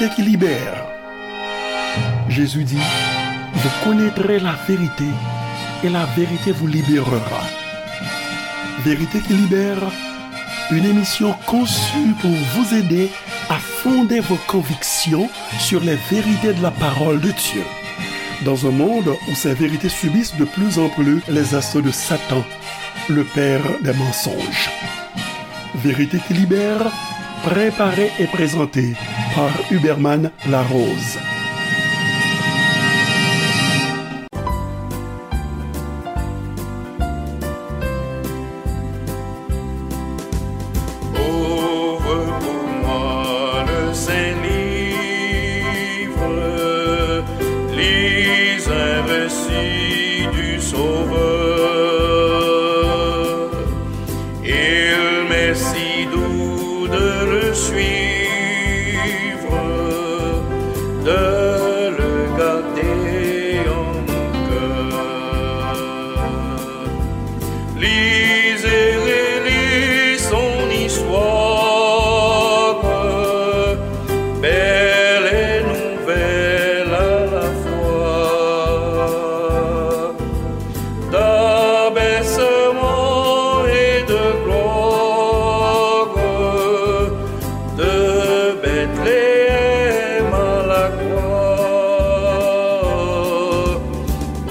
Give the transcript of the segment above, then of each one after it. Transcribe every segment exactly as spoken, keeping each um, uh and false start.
qui libère. Jésus dit, vous connaîtrez la vérité et la vérité vous libérera. Vérité qui libère, une émission conçue pour vous aider à fonder vos convictions sur les vérités de la parole de Dieu. Dans un monde où ces vérités subissent de plus en plus les assauts de Satan, le père des mensonges. Vérité qui libère, préparée et présentée par Huberman Larose. Ouvre pour moi le Saint-Livre, lis un récit du Sauveur. Il m'est si doux de le suivre, de le garder en mon cœur. Lis et relis son histoire, belle et nouvelle à la fois. D'abaissement et de gloire, de Bethléem à la croix.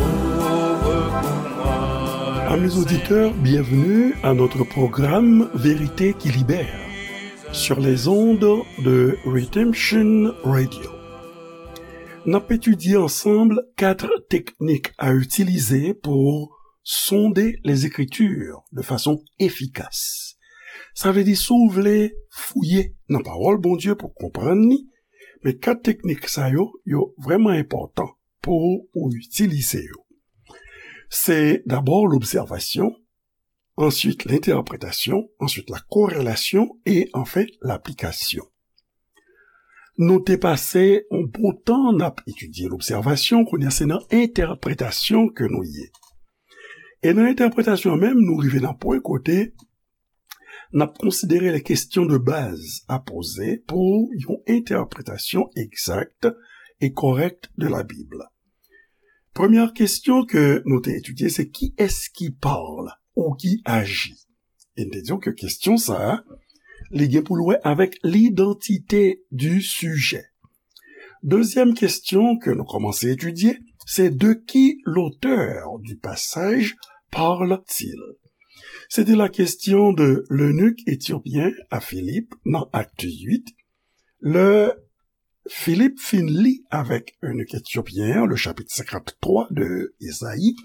Ouvre pour moi. Amis auditeurs, bienvenue à notre programme Vérité qui libère sur les ondes de Redemption Radio. N ap etidye ansanm kat teknik a itilize pou sonde les Écritures de façon efficace. Sa vle di, si w vle fouye nan pawòl Bondye pou konprann li, men kat teknik sa yo, yo vrèman enpòtan pou ou itilize yo. Se dabò lobsèvasyon, answit lentèpretasyon, answit la korelasyon e anfen laplikasyon. Nou te pase yon bon tan n ap etidye lobsèvasyon, kounye a se nan entèpretasyon ke nou ye. E nan entèpretasyon an menm, nou rive nan pwen kote n ap konsidere les questions de base à poser pou yon entèpretasyon egzak e kòrèk de la Bib. Premyè kesyon ke nou te etidye, se qui est-ce qui parle ou qui agit? E n te di w ke kesyon sa a, li gen pou l wè avèk l'identité du sujet. Dezyèm kesyon ke nou kòmanse etidye, se de qui l'auteur du passage parle-t-il? C'était la question de l'eunuque éthiopien à Philippe dans Acte huit. Le Philippe fin li avèk eunuque éthiopien, le chapitre cinquante-trois de Ezayi.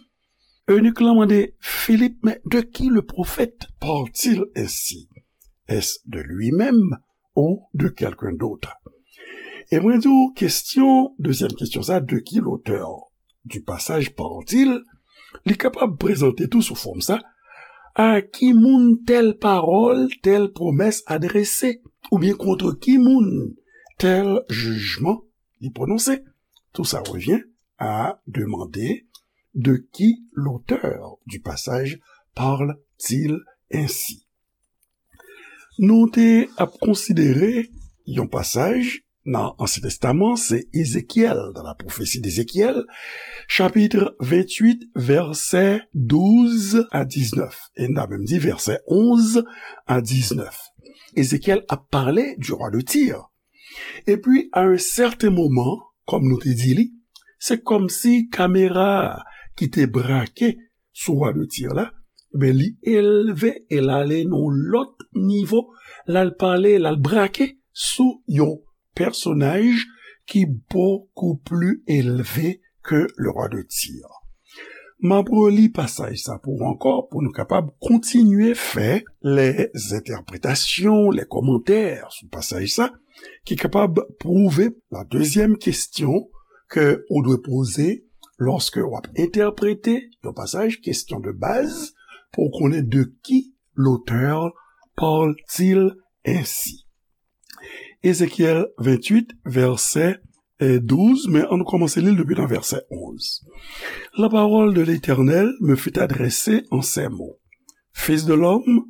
Eunuque lan mande Philippe, mais de qui le prophète parle-t-il ainsi? Est-ce de lui-même ou de quelqu'un d'autre? E mwen di w, kesyon, dezyèm kesyon sa, de qui l'auteur du passage parle-t-il, li kapab prezante tou sou fòm sa, a ki moun tèl pawòl, tèl pwomès adrese, oubyen contre ki moun tèl jijman li pwononse. Tout ça revient à demander de qui l'auteur du passage parle-t-il ainsi. Nou te ap konsidere yon pasaj nan Ansyen Testaman, se Ezekyèl, dans la prophétie d'Ézéchiel, chapitre vingt-huit, vèsè douz a diznèf. E n ta menm di vèsè onz a diznèf. Ezekyèl ap pale du roi de Tyr. Epi, à un certain moment, kòm nou te di li, se kòmsi kamera ki te brake sou wa de Tir la, ben, li elve e l ale nan yon lòt nivo, l al pale, l al brake sou yon pèsonaj ki bokou pli elve ke le roi de Tyr. M ap reli pasaj sa pou w ankò, pou nou kapab kontinye fè lè entèpretasyon, lè kòmantè sou pasaj sa, ki kapab pwouve la dezyèm kesyon ke ou dwe poze lòske w ap entèprete yon pasaj, kesyon de baz, pou w konnen de ki l'auteur parle-t-il ainsi. Ezekyèl venntuit, vèsè, eh, douz, men ann kòmanse li l depi nan vèsè onz. La parole de l'Éternel me fut adressée en ces mots. Fils de l'homme,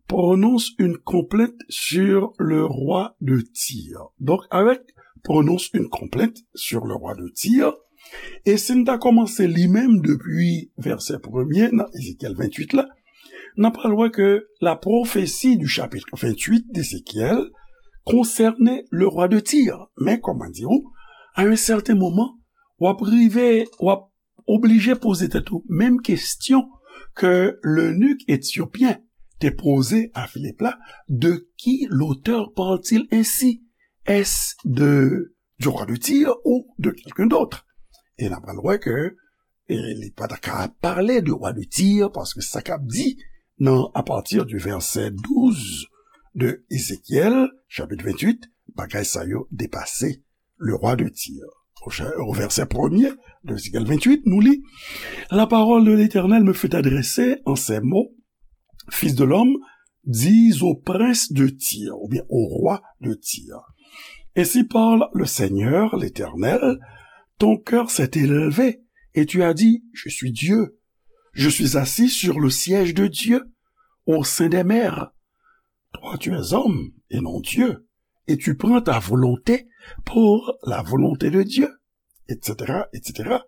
prononce une complainte sur le roi de Tyr. Donk, avèk prononce une complainte sur le roi de Tyr. E si n ta kòmanse li menm depi vèsè premye nan Ezekyèl venntuit la, n ap pral wè ke la prophétie du chapitre vingt-huit d'Ézéchiel concernait le roi de Tyr. Men, kòm mwen di w, à un certain moment, w ap rive, w ap oblije poze tèt ou menm kesyon ke lenik etyopyen te poze a Filip la, de qui l'auteur parle-t-il ainsi? Est-ce de, du roi de Tyr ou de quelqu'un d'autre? E n ap pral wè ke, e li pa ta ka pale de roi de Tyr, paske sa k ap di nan, à partir du verset douze de Ezekyèl, chapitre vingt-huit, bagay sa yo depase le roi de Tyr. Au cha-, au verset premier de Ézéchiel vingt-huit, nous lit, la parole de l'Éternel me fut adressée en ces mots, Fils de l'homme, dis au prince de Tyr, ou bien au roi de Tyr, ainsi parle le Seigneur, l'Éternel, ton cœur s'est élevé et tu as dit, je suis Dieu, je suis assis sur le siège de Dieu, au sein des mers. Toi, tu es homme et non Dieu, et tu prends ta volonté pour la volonté de Dieu, et cetera, et cetera.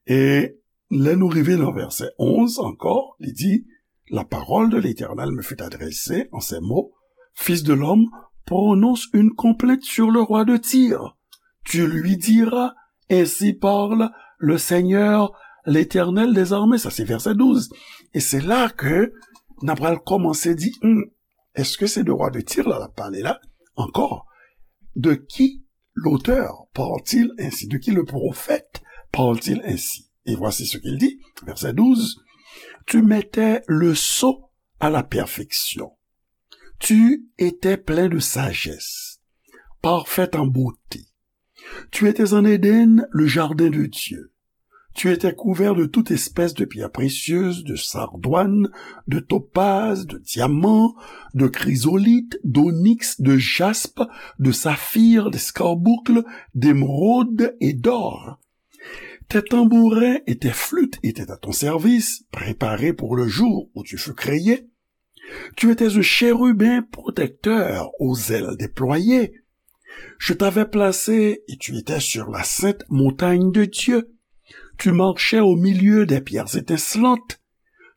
E lè nou rive nan vèsè onz ankò, li di, la parole de l'Éternel me fut adressée en ces mots, Fils de l'homme, prononce une complainte sur le roi de Tyr. Tu lui diras, ainsi parle le Seigneur, l'Éternel des armées. Sa se vèsè douz. E se la ke n ap pral kòmanse di, hmm, èske se de roi de Tyr la l ap pale la? Encore, de qui l'auteur parle-t-il ainsi? De qui le prophète parle-t-il ainsi? Et voici ce qu'il dit, verset douze, tu mettais le sceau à la perfection. Tu étais plein de sagesse, parfaite en beauté. Tu étais en Éden, le jardin de Dieu. Tu étais couvert de toute espèce de pierres précieuses, de sardoine, de topaze, de diamant, de chrysolithe, d'onyx, de jaspe, de saphir, d'escarboucle, d'émeraude et d'or. Tes tambourins et tes flûtes étaient à ton service, préparés pour le jour où tu fus créé. Tu étais un chérubin protecteur aux ailes déployées. Je t'avais placé et tu étais sur la sainte montagne de Dieu. Tu marchais au milieu des pierres étincelantes.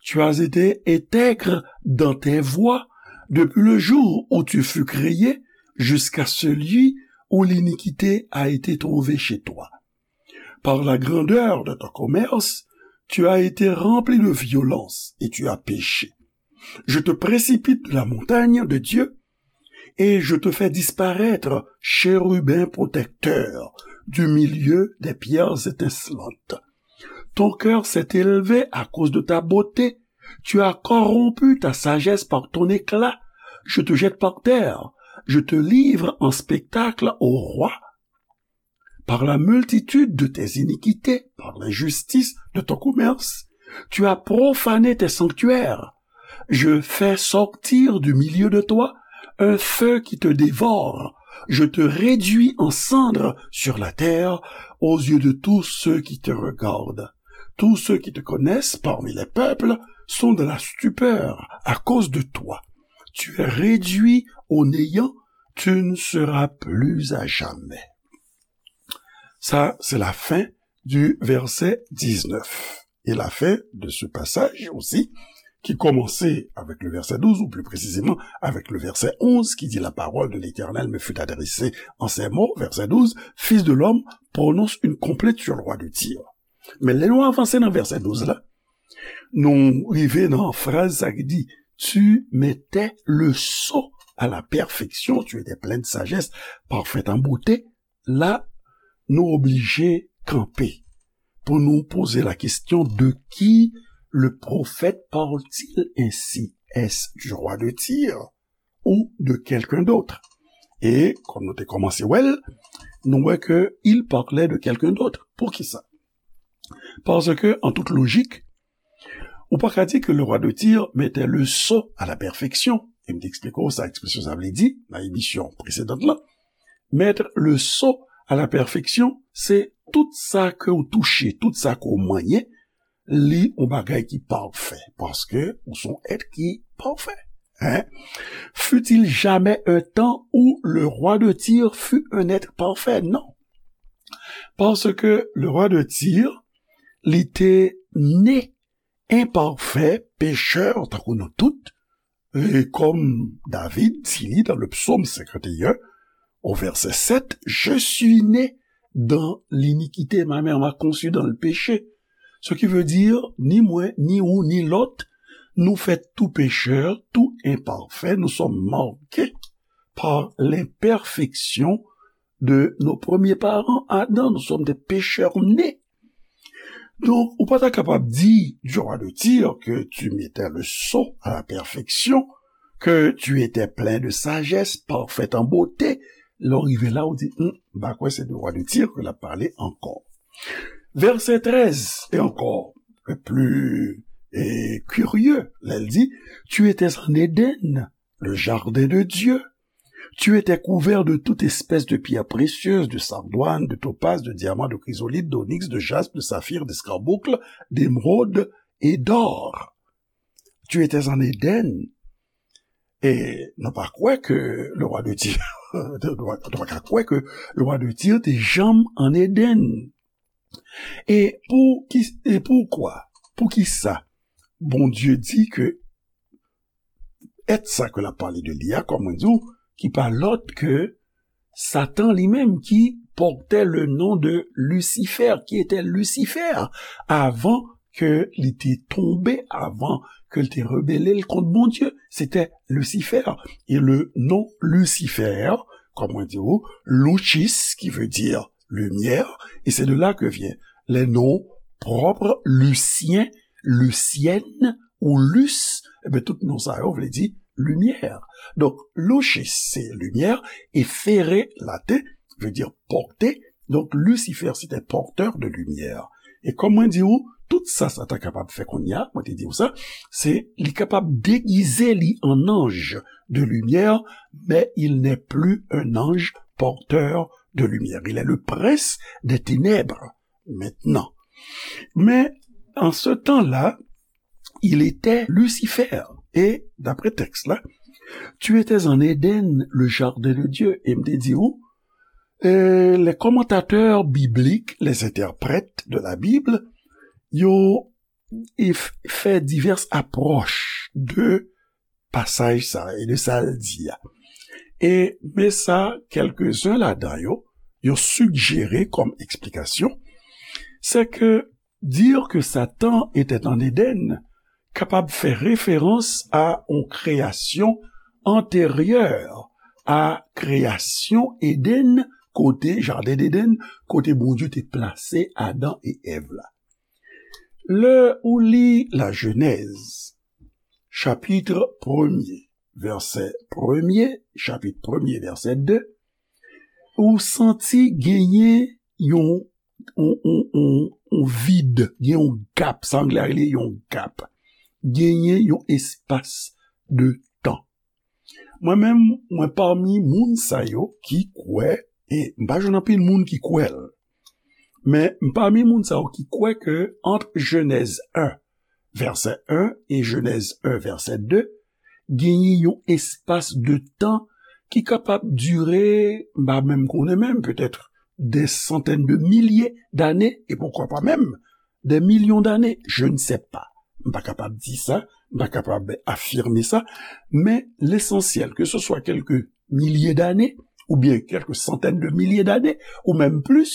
Tu as été intègre dans tes voies depuis le jour où tu fus créé jusqu'à celui où l'iniquité a été trouvée chez toi. Par la grandeur de ton commerce, tu as été rempli de violence et tu as péché. Je te précipite de la montagne de Dieu et je te fais disparaître, chérubin protecteur, du milieu des pierres étincelantes. Ton cœur s'est élevé à cause de ta beauté. Tu as corrompu ta sagesse par ton éclat. Je te jette par terre. Je te livre en spectacle au roi. Par la multitude de tes iniquités, par l'injustice de ton commerce, tu as profané tes sanctuaires. Je fais sortir du milieu de toi un feu qui te dévore. Je te réduis en cendres sur la terre aux yeux de tous ceux qui te regardent. Tous ceux qui te connaissent parmi les peuples sont dans la stupeur à cause de toi. Tu es réduit au néant, tu ne seras plus à jamais. Sa, se la fen du vèsè diznèf. E la fen de ce passage aussi, qui commençait avec le verset douze, ou plus précisément avec le verset onze, qui dit, la parole de l'Éternel me fut adressée en ces mots, verset douze, Fils de l'homme, prononce une complainte sur le roi de Tyr. Men lè nou avanse nan vèsè douz la, nou rive nan fraz sa ki di, tu mettais le sceau à la perfection, tu étais plein de sagesse, parfaite en beauté. La, nou oblije kanpe pou nou poze la question, de qui le prophète parle-t-il ainsi? Est-ce du roi de Tyr ou de quelqu'un d'autre? E, kòm nou te kòmanse wè l, nou wè ke il parlait de quelqu'un d'autre. Poukisa? Paske, an tout lojik, ou pa ka di ke le roi de Tyr mettait le sceau à la perfection. E m te eksplike w sa ekspresyon sa vle di nan emisyon presedant lan. Mettre le sceau à la perfection, se tout sa ke w touche, tout sa ke w manyen, li yon bagay ki pafè, paske ou se yon èt ki pafè. Hein? Fut-il jamais un temps où le roi de Tyr fut un être parfait? Non. Parce que le roi de Tyr, li te ne enpafè, pechè, tankou nou tout, e kòm David di li dans le psaume cinquante et un, au verset sept, je suis né dans l'iniquité, ma mère m'a conçu dans le péché. Ce qui veut dire, ni mwen, ni ou, ni lòt, nou fèt tou pechè, tou enpafè, nous sommes marqués par l'imperfection de nos premiers parents, Adam, nous sommes des pécheurs nés. Donk, ou pa ta kapab di du roi de Tyr que tu mettais le sceau à la perfection, que tu étais plein de sagesse, parfait en beauté. Lè w rive la, ou di, hmm, m pa kwè se de roi de Tyr ke l ap pale ankò. Verset treize, et encore, le plus eh, curieux, lè l di, tu étais en Éden, le jardin de Dieu. Tu étais couvert de toute espèce de pierres précieuses, de sardoine, de topaze, de diamant, de chrysolithe, d'onyx, de jaspe, de saphir, d'escarboucle, d'émeraude et d'or. Tu étais en Éden. E nou pa kwè ke le roi de Tyr, nou pa ka kwè ke le roi de Tyr te janm an Eden. E pou ki, e poukwa? Poukisa Bondye di ke èt sa ke l ap pale de li a, kòm mwen di w, ki pa lòt ke Satan li menm ki pòtè le non de Lucifer, ki etè Lucifer, avan ke li te tonbe, avan ke l te rebele l kont Bondye. Se te Lucifer. E le non Lucifer, kòm mwen di w, Lucis, qui veut dire lumière, et c'est de là que viennent les noms propres, Lucien, Lucienne ou Lus, e ben, tout non sa yo vle di limyè. Donk, Lucis, se limyè, e fere, laten, vle di pòte. Donk, Lucifer, se te pòtè de limyè. E kòm mwen di w, tout sa Satan kapab fè kounye a, mwen te di w sa, se li kapab degize li an anj de limyè, men il n'est plus un ange porteur de lumière. Il est le prince des ténèbres maintenant. Mais en ce temps-là, il était Lucifer. Et d'après texte-là, tu étais en Éden, le jardin de Dieu. E m te di ou, euh, les commentateurs bibliques, les interprètes de la Bible, yo, ils f-, fè divès apwòch de pasaj sa e de sa l di a. E men sa, kèlkezen ladan yo, yo sigjere kòm eksplikasyon, c'est que dire que Satan était en Éden kapab fè referans a yon kreyasyon anteryè a kreyasyon Eden, kote, jaden Eden, kote Bondye te plase Adan e Èv la. Lè ou li la Jenèz, chapit premye, vèsè premye, chapit premye, vèsè de, ou santi genyen yon, yon, yon, yon, yon vid, gen yon gap, sa anglè a rele yon gap. Genyen yon espas de tan. Mwen menm, mwen pami moun sa yo ki kwè, e m pa jwenn anpil moun ki kwè l, men m pami moun sa yo ki kwè ke ant Jenèz en, vèsè en, e Jenèz en, vèsè de, genyen yon espas de tan ki kapab dire, m pa menm konnen menm, petèt des centaines de milliers d'années, et pourquoi pas même des millions d'années, je ne sais pas. M pa kapab di sa, m pa kapab afime sa, men lesansyèl, ke se swa kèlke milye dane, oubyen kèlke santèn de milye dane, ou menm plis,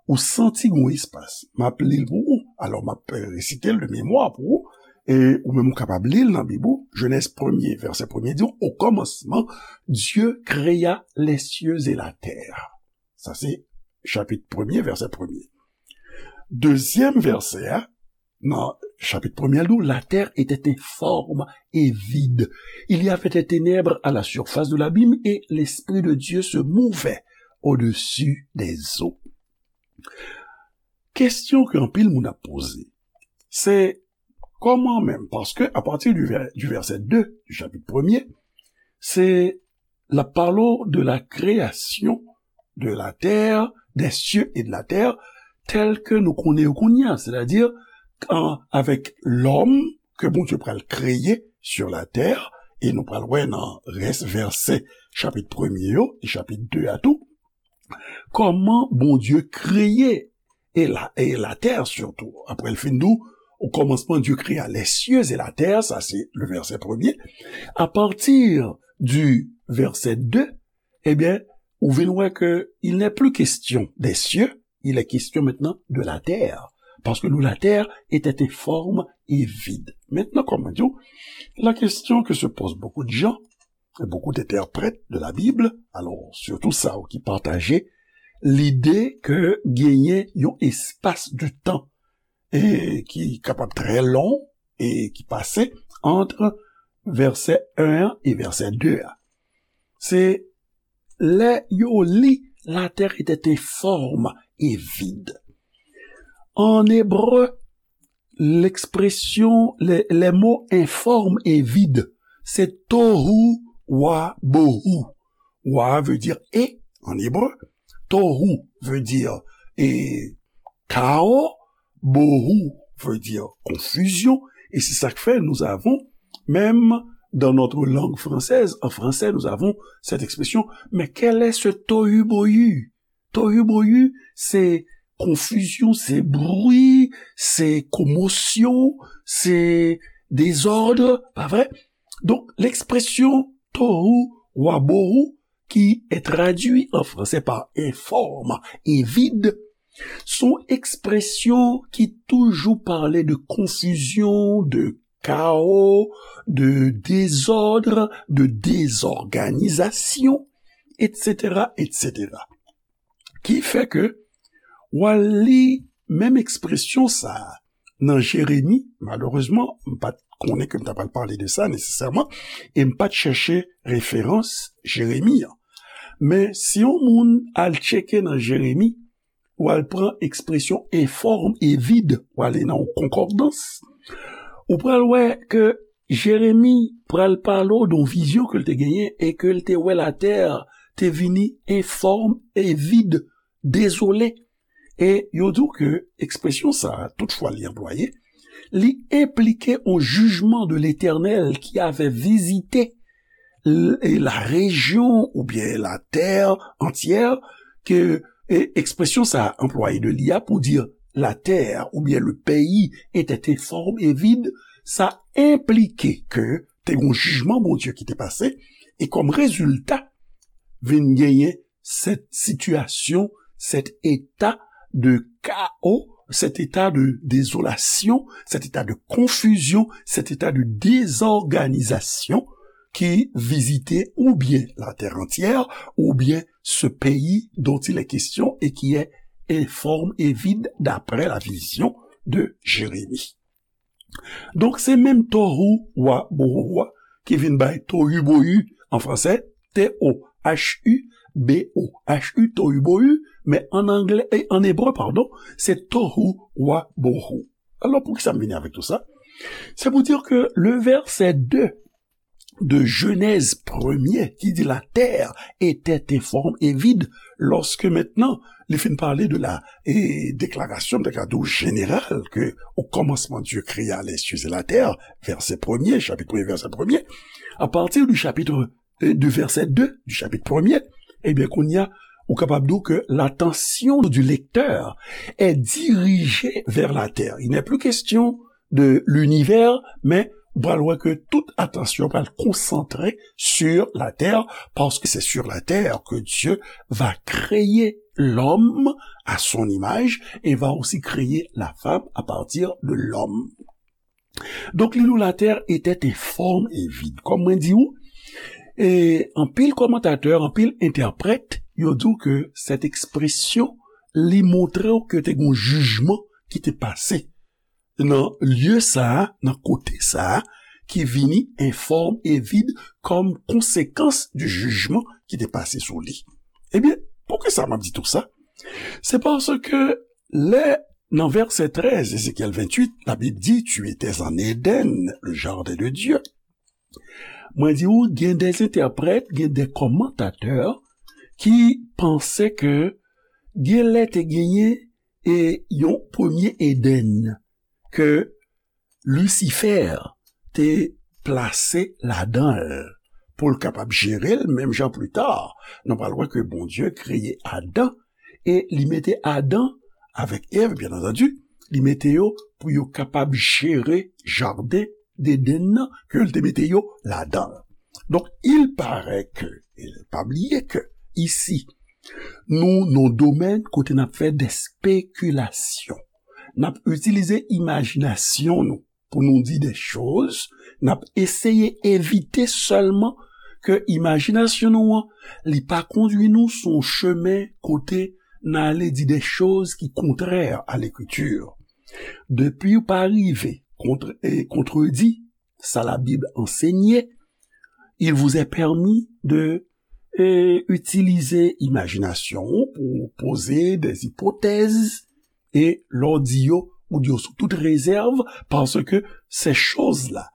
ou santi gon espas. M ap li l pou ou, alò m ap resite l de memwa pou ou, e ou menm ou kapab li l nan Bib ou, Jenèz premye, vèsè premye di, au commencement, Dieu créa les cieux et la terre. Sa se chapit premye, vèsè premye. Dezyèm vèsè a, nan chapit premye, l di w, la terre était informe et vide. Il y avait des ténèbres à la surface de l'abîme et l'Esprit de Dieu se mouvait au-dessus des eaux. Kesyon ke anpil moun ap poze, se kòman menm, paske a pati du vè-, du vèsè de du chapit premye, se l ap pale w de la création de la terre, des cieux et de la terre, tel ke nou konnen yo kounye a, sètadi, an, avèk lòm ke Bondye pral kreye sur la terre, e nou pral wè nan rès vèsè chapit premye yo, e chapit de a tou, kòman Bondye kreye e la, e latè sitou. Apre l fin di w, au commencement, Dieu créa les cieux et la terre, sa se le verset premier. À partir du verset deux, ebyen, ou vin wè ke il n'est plus question des cieux, il est question maintenant de la terre. Parce que nous, la terre était informe et vide. Maintenant, comme on dit, la question que se posent beaucoup de gens, beaucoup d'interprètes de la Bible, alors surtout sa ki pataje lide ke genyen yon espas de tan e ki kapab trè long e ki pase ant vèsè en an e vèsè de a. Se lè yo li la terre était informe et vide. En hébreu, l'expression, les, les mots informe et vide, c'est tohu wa bohu. Wa veut dire et en hébreu, tohu veut dire et chaos, bohu veut dire confusion, et c'est ça que fait nous avons, même dans notre langue française, en français, nous avons cette expression, mais quel est ce tohu-bohu? Tohu-bohu, se konfizyon, se bri, se komosyon, se dezòd, pa vre? Donk, lekspresyon tohu wa bohu, qui est traduit en français par informe et vide, se yon ekspresyon ki toujou pale de konfizyon, de kawo, de dezòd, de dezòganizasyon, et cetera, et cetera. Ki fè ke w al li menm ekspresyon sa a nan Jeremi, malerezman, m pa t konnen ke m ta pral pale de sa nesesèman, e m pa t chèche referans Jeremi an. Men si yon moun al tcheke nan Jeremi, w al pran ekspresyon informe et vide, w ale nan yon konkòdans, ou pral wè ke Jeremi pral pale w de yon vizyon ke l te genyen e ke l te wè latè te vini informe et vide, dezole. E yo di w ke ekspresyon sa a, toutfwa li anplwaye, li enplike yon jijman de Letènèl ki ave vizite l-, e la rejyon oubyen latè antyè, ke, e, ekspresyon sa a anplwaye de li a pou di latè oubyen le pays était informe et vide, sa enplike ke te gen yon jijman Bondye ki te pase, e kòm rezilta, vin genyen cette situation, cet état de chaos, cet état de désolation, cet état de confusion, cet état de désorganisation qui visitait ou bien la terre entière, ou bien ce pays dont il est question et qui est informe et vide d'après la vision de Jérémie. Donk, se menm tohu wa bohu a ki vin bay tohu bohu an fransè, T O H U B O H U, tohu bohu, men an anglè, e an ebre, padon, se tohu wa bohu. Alò, poukisa m vini avèk tou sa? C'est pour dire que le verset deux de Genèse premier qui dit la terre était informe et vide, lorsque maintenant, li fin pale de la, e, déclaration, m ta ka di w, générale, que au commencement Dieu créa les cieux et la terre, verset premier, chapitre premier, verset premier, à partir du chapitre, e, du verset deux du chapitre premier, ebyen, kounye a, ou kapab di w ke l'attention du lecteur est dirigée vers la terre. Il n'est plus question de l'univers, men ou pral wè ke tout atansyon pral konsantre sur la terre, parce que c'est sur la terre que Dieu va créer l'homme à son image et va aussi créer la femme à partir de l'homme. Donk, li di w, la terre était informe et vide. Kòm mwen di w, e anpil kòmantatè, anpil entèprèt, yo di w ke cette expression, li montre w ke te gen yon jijman ki te pase nan lye sa a, nan kote sa a, ki vini informe et vide kòm konsekans du jijman ki te pase sou li. Ebyen, poukisa m ap di tou sa? Se paske lè, nan vèsè trèz, Ézéchiel vingt-huit, la Bib di, tu étais en Éden, le jardin de Dieu. Mwen di w, gen des entèprèt, gen des commentateurs ki panse ke gen lè te genyen e yon premye Edenn ke Lisifè te plase ladan l, pou l kapab jere l, menm jan pli ta, nou pral wè ke Bondye kreye Adan, e li mete Adan avèk Èv, byen antandi, li mete yo pou yo kapab jere jaden Deden nan, ke l te mete yo ladan l. Donk, il paraît que, e pa bliye ke, isi, nou nan domèn kote n ap fè de spekilasyon. N ap itilize imajinasyon nou pou nou di de choz, n ap eseye evite sèlman ke imajinasyon nou an, li pa kondui nou sou yon chemen kote n ale di de choz ki kontrè a Lekriti. Depi w pa rive kontre, e kontredi sa Labib ansenye, il vous est permis de, e, itilize imajinasyon w pou poze de ipotèz, e lè w di yo, ou di yo sou tout rezèv, paske se choz la,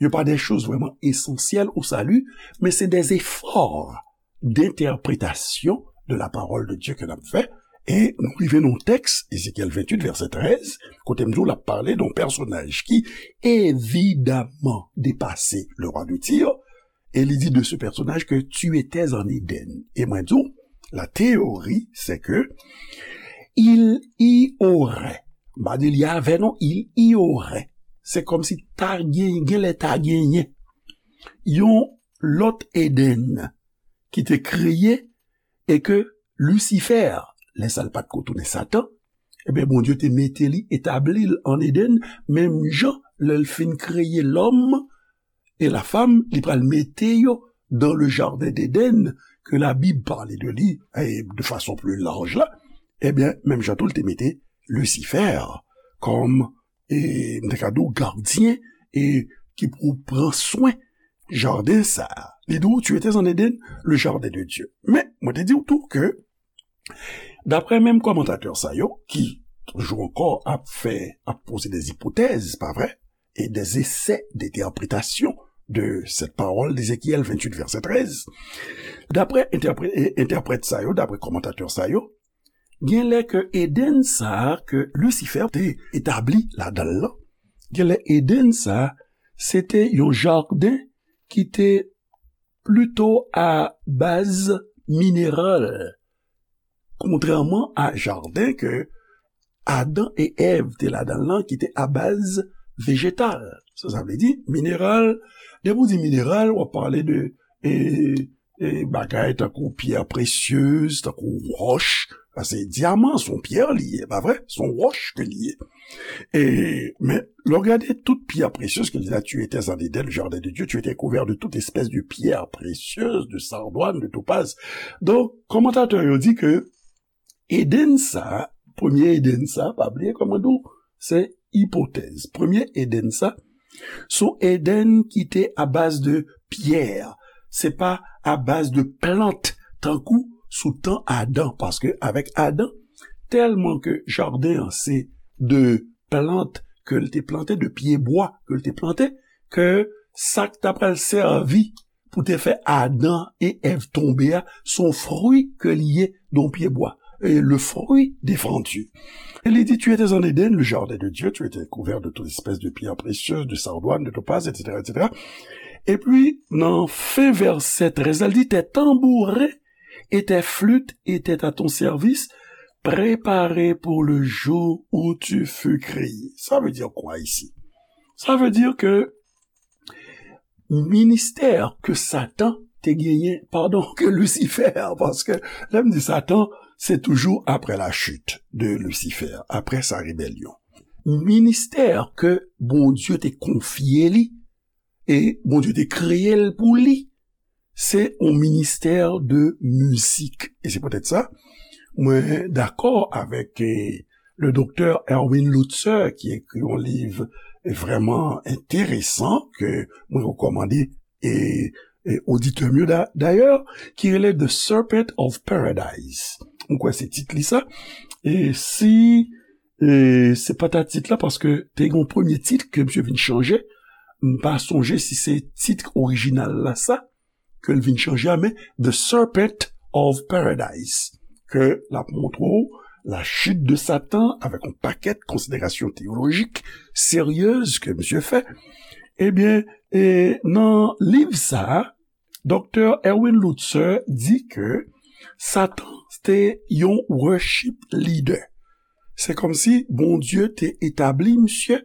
yo pa de choz vrèman esansyèl o sali, men se de efò d'entèpretasyon de la parole de Dieu ke n ap fè, e nou rive nan yon tèks, Ezekyèl venntuit, vèsè trèz, kote m di w l ap pale de yon pèsonaj ki evidaman depase le roi de Tyr, e li di de ce personnage que tu étais en Éden. E mwen di w, la théorie, c'est que il y aurait, m pa di li avè non, il y aurait. Se kòmsi ta gen, genlè ta genyen yon lòt Eden ki te kreye e ke Lisifè, lè sa l pa t ko tounen Satan, ebyen, Bondye te mete li, etabli l an Eden, menm jan lè l fin kreye lòm e la fam, li pral mete yo dans le jardin d'Éden, ke Labib pale de li, e de fason pli laj la, ebyen, menm jan tou, l te mete Lisifè kòm, e, m te ka di w, gadyen, e ki pou pran swen jaden sa a. Li di w, tu étais en Éden, le jardin de Dieu. Men, mwen te di w tou ke, daprè menm kòmantatè sa yo, ki toujou ankò ap fè, ap poze de ipotèz, pa vre, e de esè d'entèpretasyon de cette parole d'Ézéchiel venntuit, vèsè trèz, daprè entèpre-, e, entèprèt sa yo, daprè kòmantatè sa yo, genlè ke Eden sa a ke Lisifè te etabli ladan l lan, genlè Eden sa a, se te yon jaden ki te plito a baz mineral, kontrèman a jaden ke Adan e Èv te ladan l lan ki te a baz vejetal. Sa, sa vle di mineral. Depi w di mineral, w ap pale de, e, e, bagay tankou pyè presyez, tankou wòch. Paske dyaman, se yon pyè li ye, pa vre? Se yon wòch ke li ye. E, men, lè w gade tout pyè presyez ke li di, tu étais en Éden, le jardin de Dieu, tu étais couvert de toute espèce de pierre précieuse, de sardoine, de topaze. Donk, kòmantatè yo di ke Eden sa, premye Eden sa, pa bliye kòman di w, se ipotèz. Premye Eden sa, se yon Eden ki te a baz de pyè, se pa a baz de plant, tankou sou tan Adan, paske avèk Adan, tèlman ke jaden an se de plant ke l te plante, de pyebwa ke l te plante, ke sa k ta pral sèvi pou te fè Adan e Èv tonbe a, se yon fwi ke li ye de yon pyebwa. Et le fruit défendu. Et il dit, tu étais en Éden, le jardin de Dieu, tu étais couvert de toute espèce de pierres précieuses, de sardoines, de topazes, et cetera, et cetera. Epi, nan fen vèsè trèz la, li di, tes tambourins et tes flûtes étaient à ton service, préparés pour le jour où tu fus créé. Ça veut dire quoi ici? Ça veut dire que ministè ke Satan te genyen, padon, ke Lisifè, paske lè m di Satan, se toujou apre la chute de Lucifer, apre sa rebelyon. Ministè ke Bondye te konfye li, e Bondye te kreye l pou li, se yon ministè de mizik. E se poutèt sa, mwen dakò avèk, eh, le doktè Erwin Lutzer, ki ekri yon liv vrèman enteresan, ke mwen rekòmande, e, e oditè m yo da-, dayè, ki rele The Serpent of Paradise. Mwen kwè se tit li sa. E si, e se pa ta tit la, paske te gen yon premye tit ke misye vin chanje, m pa sonje si se tit orijinal la sa, ke l vin chanje a, men The Serpent of Paradise, ke l ap montre w la chute de Satan avèk yon pakèt konsiderasyon teyolojik seryez ke misye fè. Ebyen, e, nan liv sa a, Doktè Erwin Lutzer di ke Satan te yon worship leader. Se kòmsi Bondye te etabli misye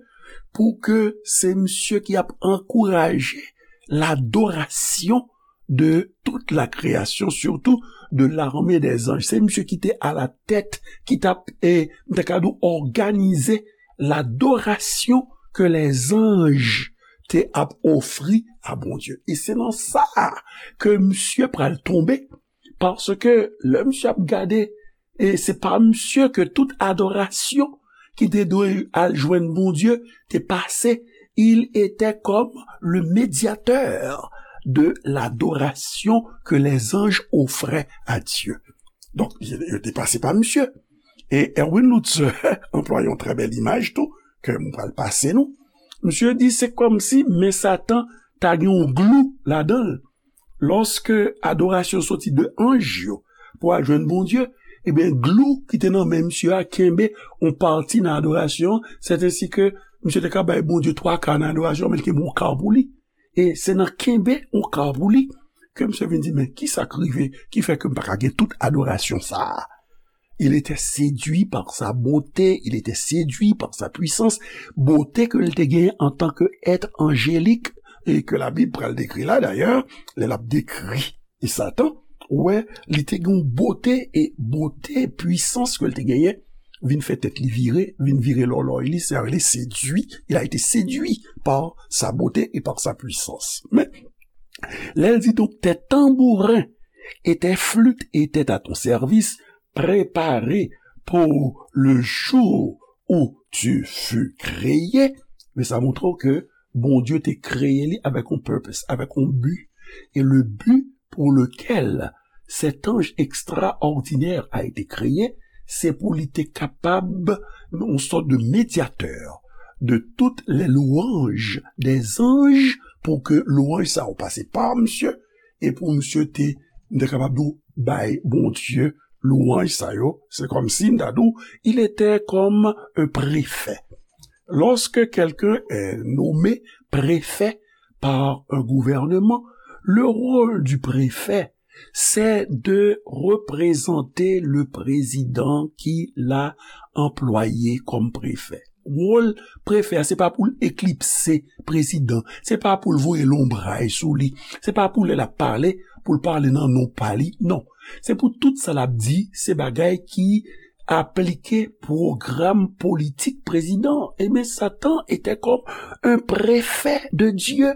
pou ke se misye ki ap ankouraje ladorasyon de tout la création, surtout de l'armée des anges. Se misye ki te alatèt, ki t ap, e, m ta ka di w, òganize ladorasyon ke lèzanj te ap ofri a Bondye. E se nan sa a ke misye pral tonbe, paske lè misye ap gade, e se pa misye ke tout adorasyon ki te dwe al jwenn Bondye te pase. Il était comme le médiateur de l'adoration que les anges offraient à Dieu. Donk, yo te pase pa misye. E Erwin Lutzer anplwaye yon trè bèl imaj tou, ke m pral pase nou. Misye di se kòmsi men Satan ta gen yon glou ladan l. Lòske adorasyon soti de anj yo pou al jwenn Bondye, ebyen, glou ki te nan men misye a kenbe yon pati nan adorasyon an, sètensi ke misye te ka bay Bondye twa ka nan adorasyon an, men l kenbe yon ka pou li. E se nan kenbe yon ka pou li ke misye vin di, men kisa k rive ki fè ke m pa ka gen tout adorasyon sa a? Il était séduit par sa beauté, il était séduit par sa puissance, bote ke l te genyen antanke èt anjelik, e ke Labib pral dekri la dayè, lè l ap dekri e Satan, ou wè, li te gen yon bote, e bote, pwisans ke l te genyen, vin fè tèt li vire, vin vire lòlòy li, se sa rele séduit, il a été séduit par sa beauté et par sa puissance. Men, lè l di, donc, tes tambourins et tes flûtes étaient à ton service, préparés pour le jour où tu fus créé. Men sa montre w ke Bondye te kreye li avèk yon purpose, avèk yon bi. E le bi pour lequel cet ange extraordinaire a été créé, se pou li te kapab yon sòt de médiateur de toutes les louanges des anges, pou ke lwanj sa yo pase pa misye, e pou misye te, m te kapab di w, bay Bondye lwanj sa yo. Se kòmsi m ta di w, il était comme un préfet. Lorsque quelqu'un est nommé préfet par un gouvernement, le rôle du préfet, c'est de représenter le président qui l'a employé comme préfet. Wòl prefè a, se pa pou l eklipse prezidan, se pa pou l voye lonbray sou li, se pa pou lè l ap pale, pou l pale nan non pa li, non. Se pou tout sa l ap di, se bagay ki aplike pwogram politik prezidan an. Ebyen, Satan était comme un préfet de Dieu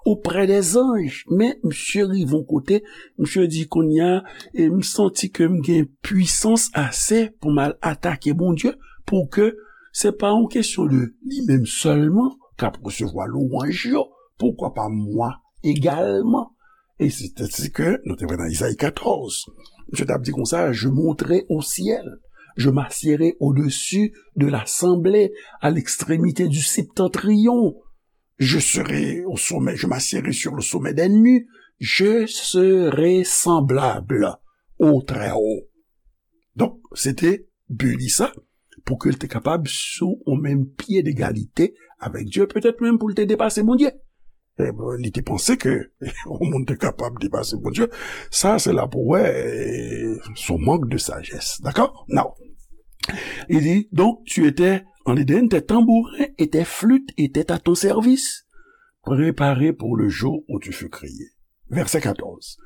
auprès des anges. Men, misye rive yon kote, misye di, kounye a, e m santi ke m gen pwisans ase pou m al atake Bondye, pou ke se pa yon kesyon de li menm sèlman k ap resevwa lwanj yo, pourquoi pas moi également? E se te sa ke nou te wè nan Izayi katòz. Misye t ap di konsa, je monterai au ciel, je m'assiérai au-dessus de l'assemblée, à l'extrémité du septentrion. Je serai au sommet, je m'assiérai sur le sommet des nues, je serai semblable au Très-Haut. Donk, se te bi li sa, pou ke l te kapab sou yon menm pye degalite avèk Dye, petèt menm pou l te depase Bondye. E, bon, li te panse ke yon moun te kapab depase Bondye. Sa, se la pou wè, e, se yon mank de sajès. Dakò? Now, il dit, donc, tu étais en Éden, tes tambourins et tes flûtes étaient à ton service, préparés pour le jour où tu fus créé. Verset quatorze.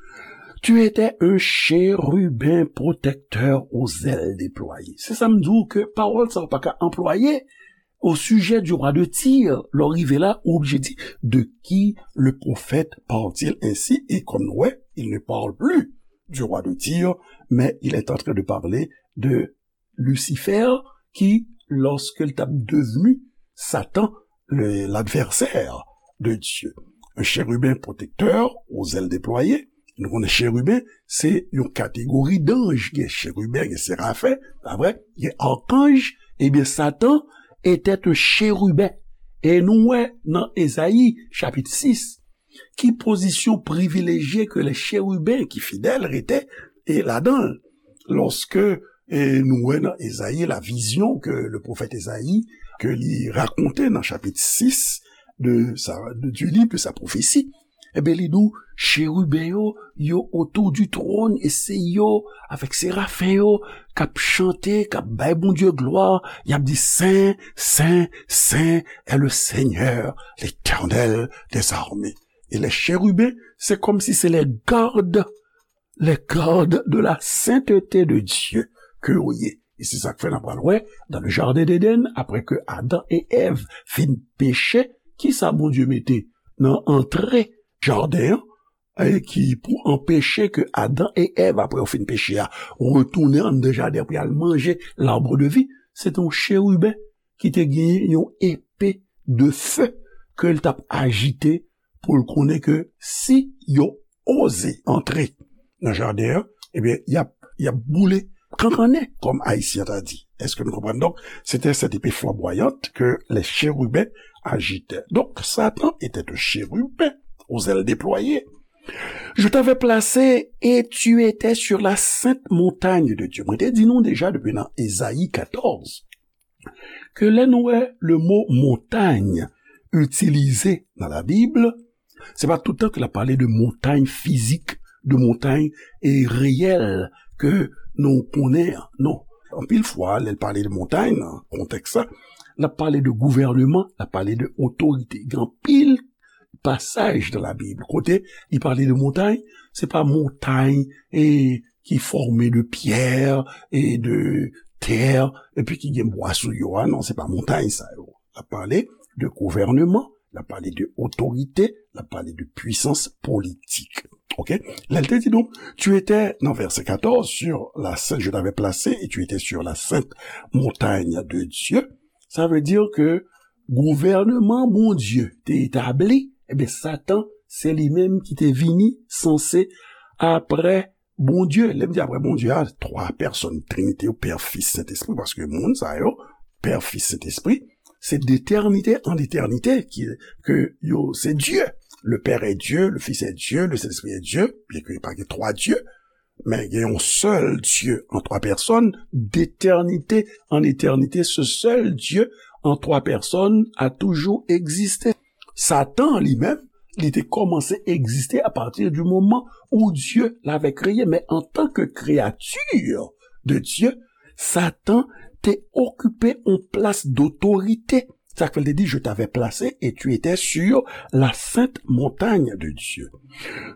Tu étais un chérubin protecteur aux ailes déployées. Se sa m di w ke pawòl sa w pa ka anplwaye au sujet du roi de Tyr. Lè w rive la, ou oblije di, de qui le prophète parle-t-il ainsi? Et comme nou wè, il ne parle plus du roi de Tyr, mais il est en train de parler de Lucifer, ki, lorsque l t ap devenu Satan, le, l'adversaire de Dieu. Un chérubin protecteur aux ailes déployées. Nou konnen cheriben, se yon kategori danj. Gen cheriben, gen serafen, pa vre? Gen arkanj. Ebyen, Satan était un chérubin. E nou wè nan Ezayi, chapit sis, ki pozisyon privilejye ke lè cheriben ki fidèl rete, e, ladan l. Lòske, e, nou wè nan Ezayi, la vizyon ke le pwofèt Ezayi, ke li rakonte nan chapit sis, de sa, de, du livre de sa prophétie, ebyen, li di w, cheriben yo, yo autour du trône, e se yo, avèk serafen yo, k ap chante, k ap bay Bondye glwa, y ap di, Saint, Saint, Saint est le Seigneur, l'Éternel des armées. E les chérubins, se kòmsi se les gardes, les gardes de la sainteté de Dieu ke yo ye. E se sa k fè n ap pral wè, dans le jardin d'Éden, apre ke Adan e Èv fin peche, kisa Bondye mete nan antre jaden an, e ki pou anpeche ke Adan e Èv, apre yo fin peche a, retounen anndan jaden an pou y al manje l'arbre de vie, se te yon cheriben ki te genyen yon epe de fe ke l t ap ajite pou l konnen ke si yo oze antre nan jaden an, ebyen, y ap, y ap boule kankannen, kòm Ayisyen ta di. Èske nou konprann? Donk, c'était cette épée flamboyante que les chérubins agitaient. Donc, Satan était un chérubin aux ailes déployées. Je t'avais placé et tu étais sur la sainte montagne de Dieu. Mwen te di nou deja depi nan Ezayi katòz, ke lè nou wè le mo montagne itilize nan Labib, se pa tout tan ke l ap pale de montay fizik, de montay, e, reyèl ke nou konnen an. Non. Anpil fwa, lè l pale de montay nan kontèks sa, l ap pale de gouvèneman, l ap pale de otorite. Gen anpil pasaj nan Labib kote li pale de montay, se pa montay, e, ki fòme de pyè e de tè, epi ki gen bwa sou yo a. Non, se pa montay sa yo. L ap pale de gouvèneman, l ap pale de otorite, l ap pale de pwisans politik. Oke? Lè l te di nou, tu étais, nan vèsè katòz, sur la sainte, je t'avais placé et tu étais sur la sainte montagne de Dieu. Sa vle di ke gouvèneman Bondye te etabli, ebyen, Satan, se li menm ki te vini sanse apre Bondye. Lè m di apre Bondye a, twa pèsòn Trinite yo, Pè, Fis, Sentespri, paske moun sa yo, Pè, Fis, Sentespri, se d'éternité en éternité ki, ke yo, se Dye. Le Père est Dieu, le Fils est Dieu, le Saint-Esprit est Dieu, byen ke pa gen twa Dye, men gen yon sèl Dye an twa pèsòn, d'éternité en éternité, ce seul Dieu en trois personnes a toujours existé. Satan, li menm, li te kòmanse egziste apati di moman où Dieu l'avait créé, men antanke kreyati de Dye, Satan te okipe yon plas dotorite. Sa k fè l te di, je t'avais placé et tu étais sur la sainte montagne de Dieu.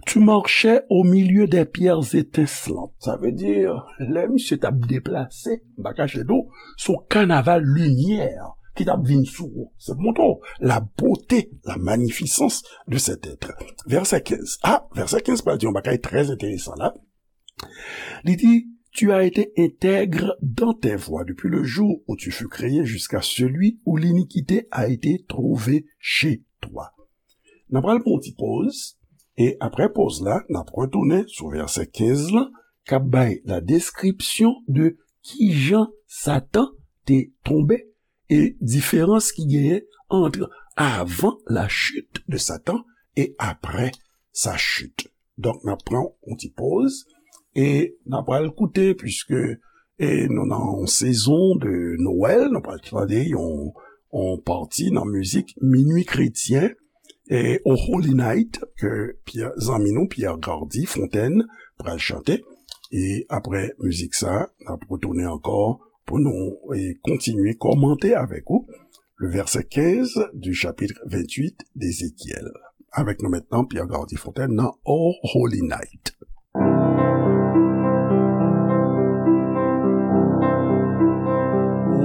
Tu marchais au milieu des pierres étincelantes. Sa vle di, lè misye t ap deplase, m pa kache di w, se yon kanaval limyè ki t ap vin sou ou. Se pou montre w la beauté, la magnificence de cet être. Vèsè kenz. Ah, vèsè kenz pral di yon bagay trè enteresan la. Li di, tu as été intègre dans tes voies depuis le jour où tu fus créé jusqu'à celui où l'iniquité a été trouvée chez toi. N ap pral pran yon ti poz, e apre poz la, n ap retounen sou vèsè kenz lan, k ap bay la description de kijan Satan te tonbe e diferans ki genyen ant avant la chute de Satan et après sa chute. Donk, n ap pran yon ti poz e n ap pral koute, puiske, e, nou nan yon sezon de Nwèl, nou pral tande yon, yon pati nan mizik Minwi Kretyen, e, O Holy Night, ke Pierre, zanmi nou, Pierre Gardy Fontaine, pral chante. E apre mizik sa, n ap retounen ankò pou nou, e, kontinye kòmante avèk ou le verset quinze du chapitre vingt-huit d'Ézéchiel. Avèk nou mentnan, Pierre Gardy Fontaine nan O Holy Night.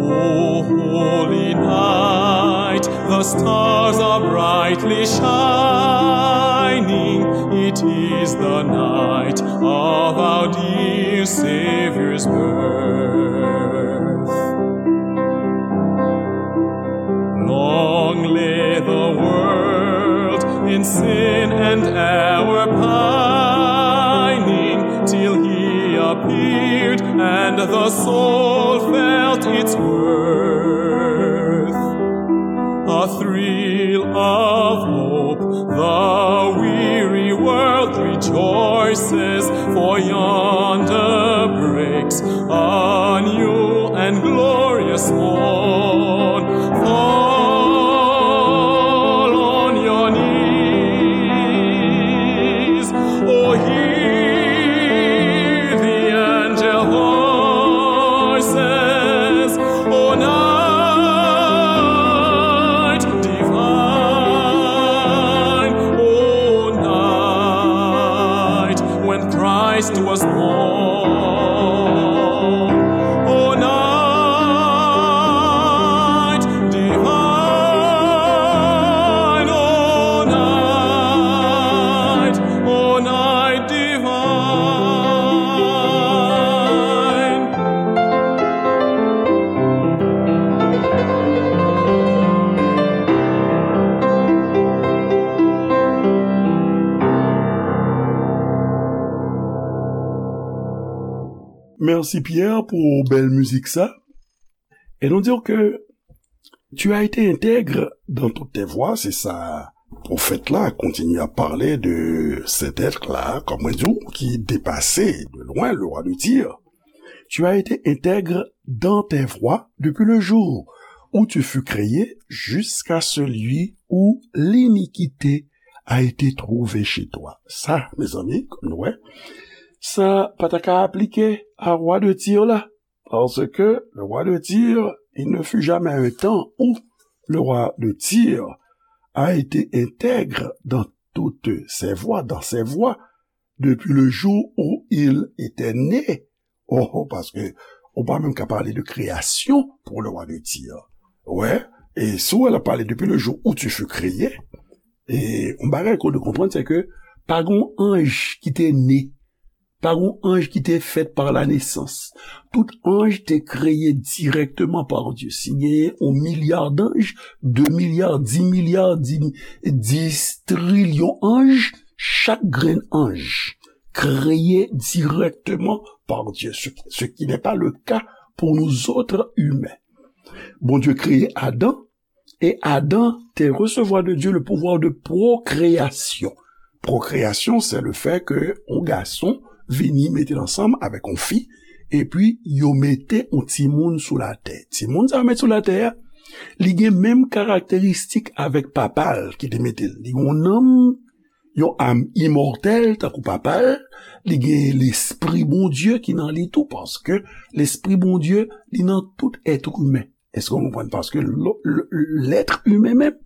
O holy night, the stars are brightly shining. It is the night of our dear Savior's birth. Long lay the world in sin and error pining, till he appeared and the soul felt its worth. A thrill of hope, the weary world rejoices, for yonder breaks a new and glorious morn. Fall Merci Pierre pour belle musique ça. Et nous dire que tu as été intègre dans toutes tes voies, c'est ça. Pwofèt la kontinye ap pale de cet être-là, kòm mwen di w, ki depase de loin le roi de Tyr. Tu as été intègre dans tes voies depuis le jour où tu fus créé jusqu'à celui où l'iniquité a été trouvée chez toi. Sa, mezanmi, kòm nou wè, sa pa ta ka aplike a roi de Tyr la. Parce que le roi de Tyr, il ne fut jamais un temps où le roi de Tyr a été intègre dans toutes ses voies, dans ses voies, depuis le jour où il était né. Oh, oh, paske ou pa menm ka pale de kreyasyon pou le roi de Tyr. Wè, e si w wè l ap pale depuis le jour où tu fus créé, e yon bagay ke w dwe konprann, se ke pa gen yon anj ki te ne, pa gen yon anj ki te fèt par la naissance. Tout anj te kreye dirèkteman par Dieu. Si genyen yon milya d'anj, de milya, dis milya, dis, dis trilyon anj, chak grenn anj kreye dirèkteman par Dieu, ce, ce qui n'est pas le cas pour nous autres humains. Bondye kreye Adan, e Adan te resevwa de Dieu le pouvoir de procréation. Procréation, c'est le fait que yon gason vini mete l ansanm avèk yon fi, epi yo mete yon timoun sou latè. Timoun sa yo met sou latè a, li gen menm karakteristik avèk papa l ki te mete l. Li gen yon nanm, yon am imòtèl, tankou papa l, li gen lespri Bondye ki nan li tou, paske lespri Bondye, li nan tout èt imen. Èske w konprann? Paske lo- lo- l'être humain menm,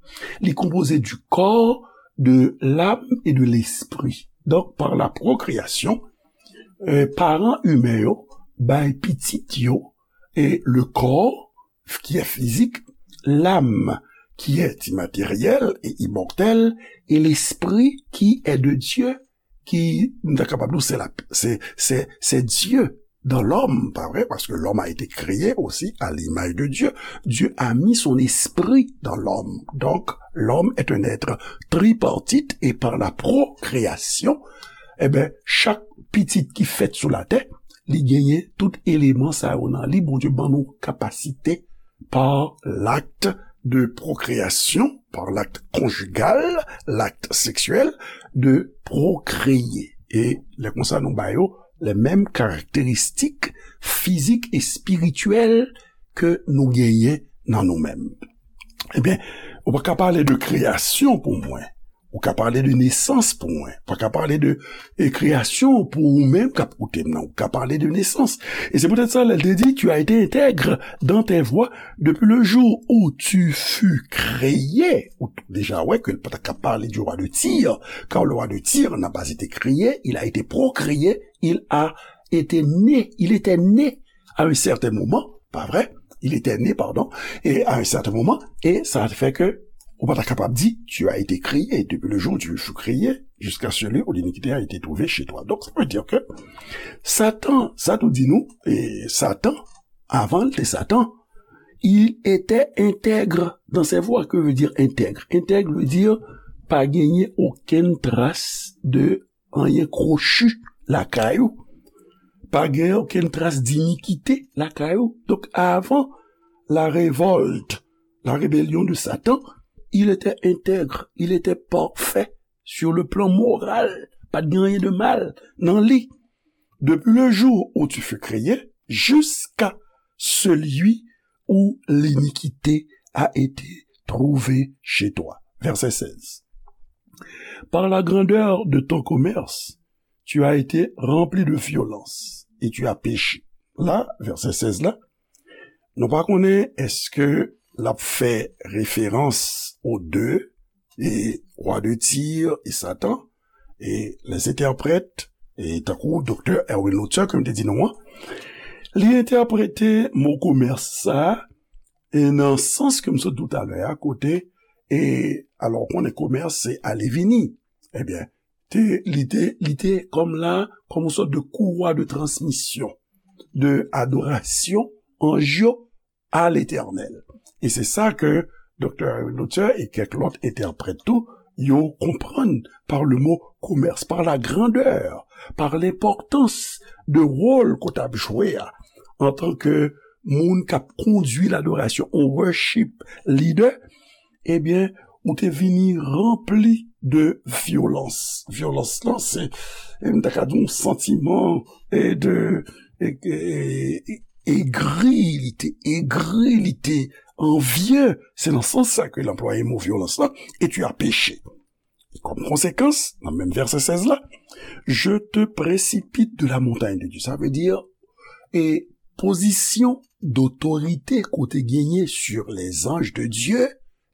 li konpoze du corps, de l'âme et de l'esprit. Donc, par la procréation, euh, paran imen yo bay pitit yo e le corps qui est physique, l'âme qui est immatérielle et immortelle, et l'esprit qui est de Dieu, ki, nou ta kapab di, se la, se, se, se Dieu dans l'homme, pas vrai? Parce que l'homme a été créé aussi à l'image de Dieu. Dieu a mis son esprit dans l'homme. Donc, l'homme est un être tripartite et par la procréation, eh ben, chak pitit ki fèt sou latè, li genyen tout eleman sa yo nan li. Bondye ban nou kapasite par l'acte de procréation, par l'acte conjugal, l'acte sexuel, de procréer. E lè konsa nou ba yo les mêmes caractéristiques physiques et spirituelles ke nou genyen nan nou menm. Ebyen, ou pa ka pale de kreyasyon pou mwen. Ou ka pale de nesans pou mwen. Ou pa ka pale de e, kreyasyon pou ou menm k ap koute m nan. Ou ka pale de nesans. E se poutèt sa, lè l te di, tu as été intègre dans tes voies depuis le jour où tu fus créé. Ou deja wè ke l pa ta ka pale du roi de Tyr, car le roi de Tyr n'a pas été créé, il a été procréé, il a été né, il était né à un certain moment, pas vrai? Il était né, pardon, et à un certain moment, et ça fait que ou pa ta kapab di, tu as été créé, depuis le jour où tu fus créé, jusqu'à celui où l'iniquité a été trouvée chez toi. Donc, ça veut dire que Satan, sa tou di nou, e Satan, avan l te Satan, il était intègre dans ses voies. Que veut dire intègre? Intègre veut dire pa genyen okenn tras de anyen kwochi lakay ou. Pa gen okenn tras dinikite lakay ou. Donk, avan la révolte, la rébellion de Satan, il était intègre, il était parfait sur le plan moral. Pa t gen anyen de mal nan li. Depuis le jour où tu fus créé, jusqu'à celui où l'iniquité a été trouvée chez toi. Verset seize. Par la grandeur de ton commerce, tu as été rempli de violence et tu as péché. La, vèsè sèz la, nou pa konnen èske l ap fè referans o de, e, roi de Tyr e Satan, e les interprètes, e tankou doktè Erwin Luther, ke m te di nou an, li entèprete mo komès sa a, e nan sans ke m sot di w talè a, kote, e, alò, w konnen komès se ale vini. Ebyen, te, li te, li te kòm la, kòm yon sòt de courroie de transmission, de adoration anj yo à l'Éternel. E se sa ke doktè Luther e kèk lòt entèprèt tou, yo konprann par le mot commerce, par la grandeur pa lenpòtans de wòl ke w t ap jwe a, antanke moun k ap kondui ladorasyon, yon worship leader, ebyen, ou te vini ranpli de vyolans. Vyolans lan, se, e, m ta ka di yon santiman, e, de, e, e, e, egri, li te egri, li te anvye. Se nan sans sa ke l anplwaye mo vyolans lan, et tu as péché. E kòm konsekans, nan menm vèsè sèz la, je te précipite de la montagne de Dieu. Sa vle di, e pozisyon dotorite ke w te genyen sur les anges de Dieu,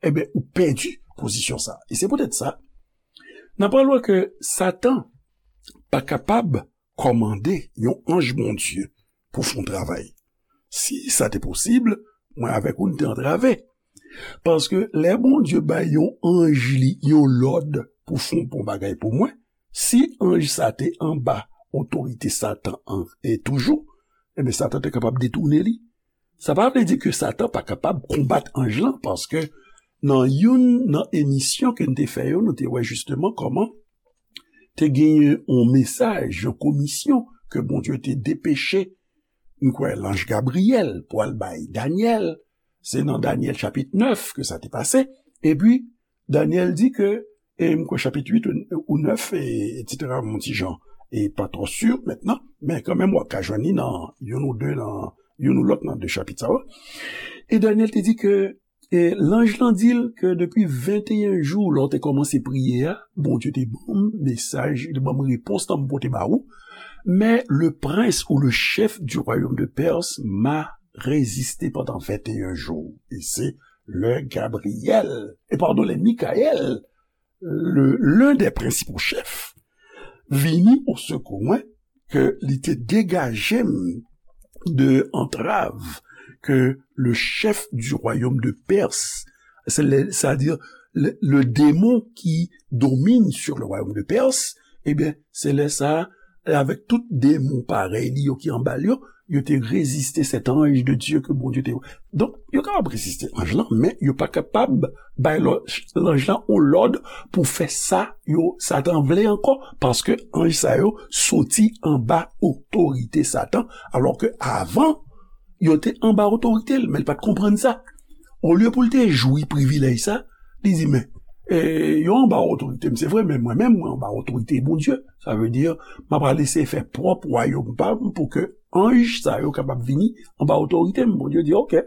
ebyen, ou pèdi pozisyon sa. E se poutèt sa, n ap pral wè ke Satan pa kapab kòmande yon anj Bondye pou fè yon travay. Si sa te posib, mwen avèk ou, n te antrave. Paske lè Bondye bay yon anj li yon lòd pou fè yon bon bagay pou mwen, si anj sa te anba otorite Satan an, e toujou, ebyen, Satan te kapab detounen li. Sa pa vle di ke Satan pa kapab konbat anj lan, paske nan youn nan emisyon ke n te fè yo, nou te wè jisteman kòman te genyen yon mesaj, yon komisyon ke Bondye te depeche, m kwè, lanj Gabriyèl pou al bay Danyèl. Se nan Danyèl chapit nèf ke sa te pase. Epi, Danyèl di ke, e m kwè chapit uit ou, ou nèf, e, etsetera, yon ti jan, e pa twò si mentnan, men kanmenm w ap ka jwenn li nan youn ou de, nan youn ou lòt nan de chapit sa yo. E Danyèl te di ke, e lanj lan di l ke depi venteyen jou, lè w te kòmanse priye a, Bondye te ban m mesaj, li te ban m repons lan m pote ba ou. Mais le prince ou le chef du royaume de Perse m'a résisté pendant vingt et un jours. E se lè Gabriyèl, e padon, lè Mikayèl, le, l'un des principaux chefs, vini au sekou mwen, ke li te degaje m de antrav ke le chef du royaume de Perse, se le, c'est-à-dire le, le démon qui domine sur le royaume de Perse, ebyen, se lè sa, avèk tout demon parèy li yo ki anba l yo, yo te reziste cet ange de Dieu ke Bondye te. Donk, yo kapab reziste anj lan, men yo pa kapab bay lò-, lanj lan yon lòd pou fè sa yo, Satan vle ankò, paske anj sa yo soti anba otorite Satan, alò ke avan, yo te anba otorite l, men l pa t konprann sa. Olye pou l te jwi privilèj sa, li di, men, e, yo anba otorite m, se vre, men mwen menm, mwen anba otorite Bondye. Sa vle di, m ap al eseye fè pwòp wayòm pa m pou ke anj sa yo kapab vini anba otorite m. Bondye di, oke.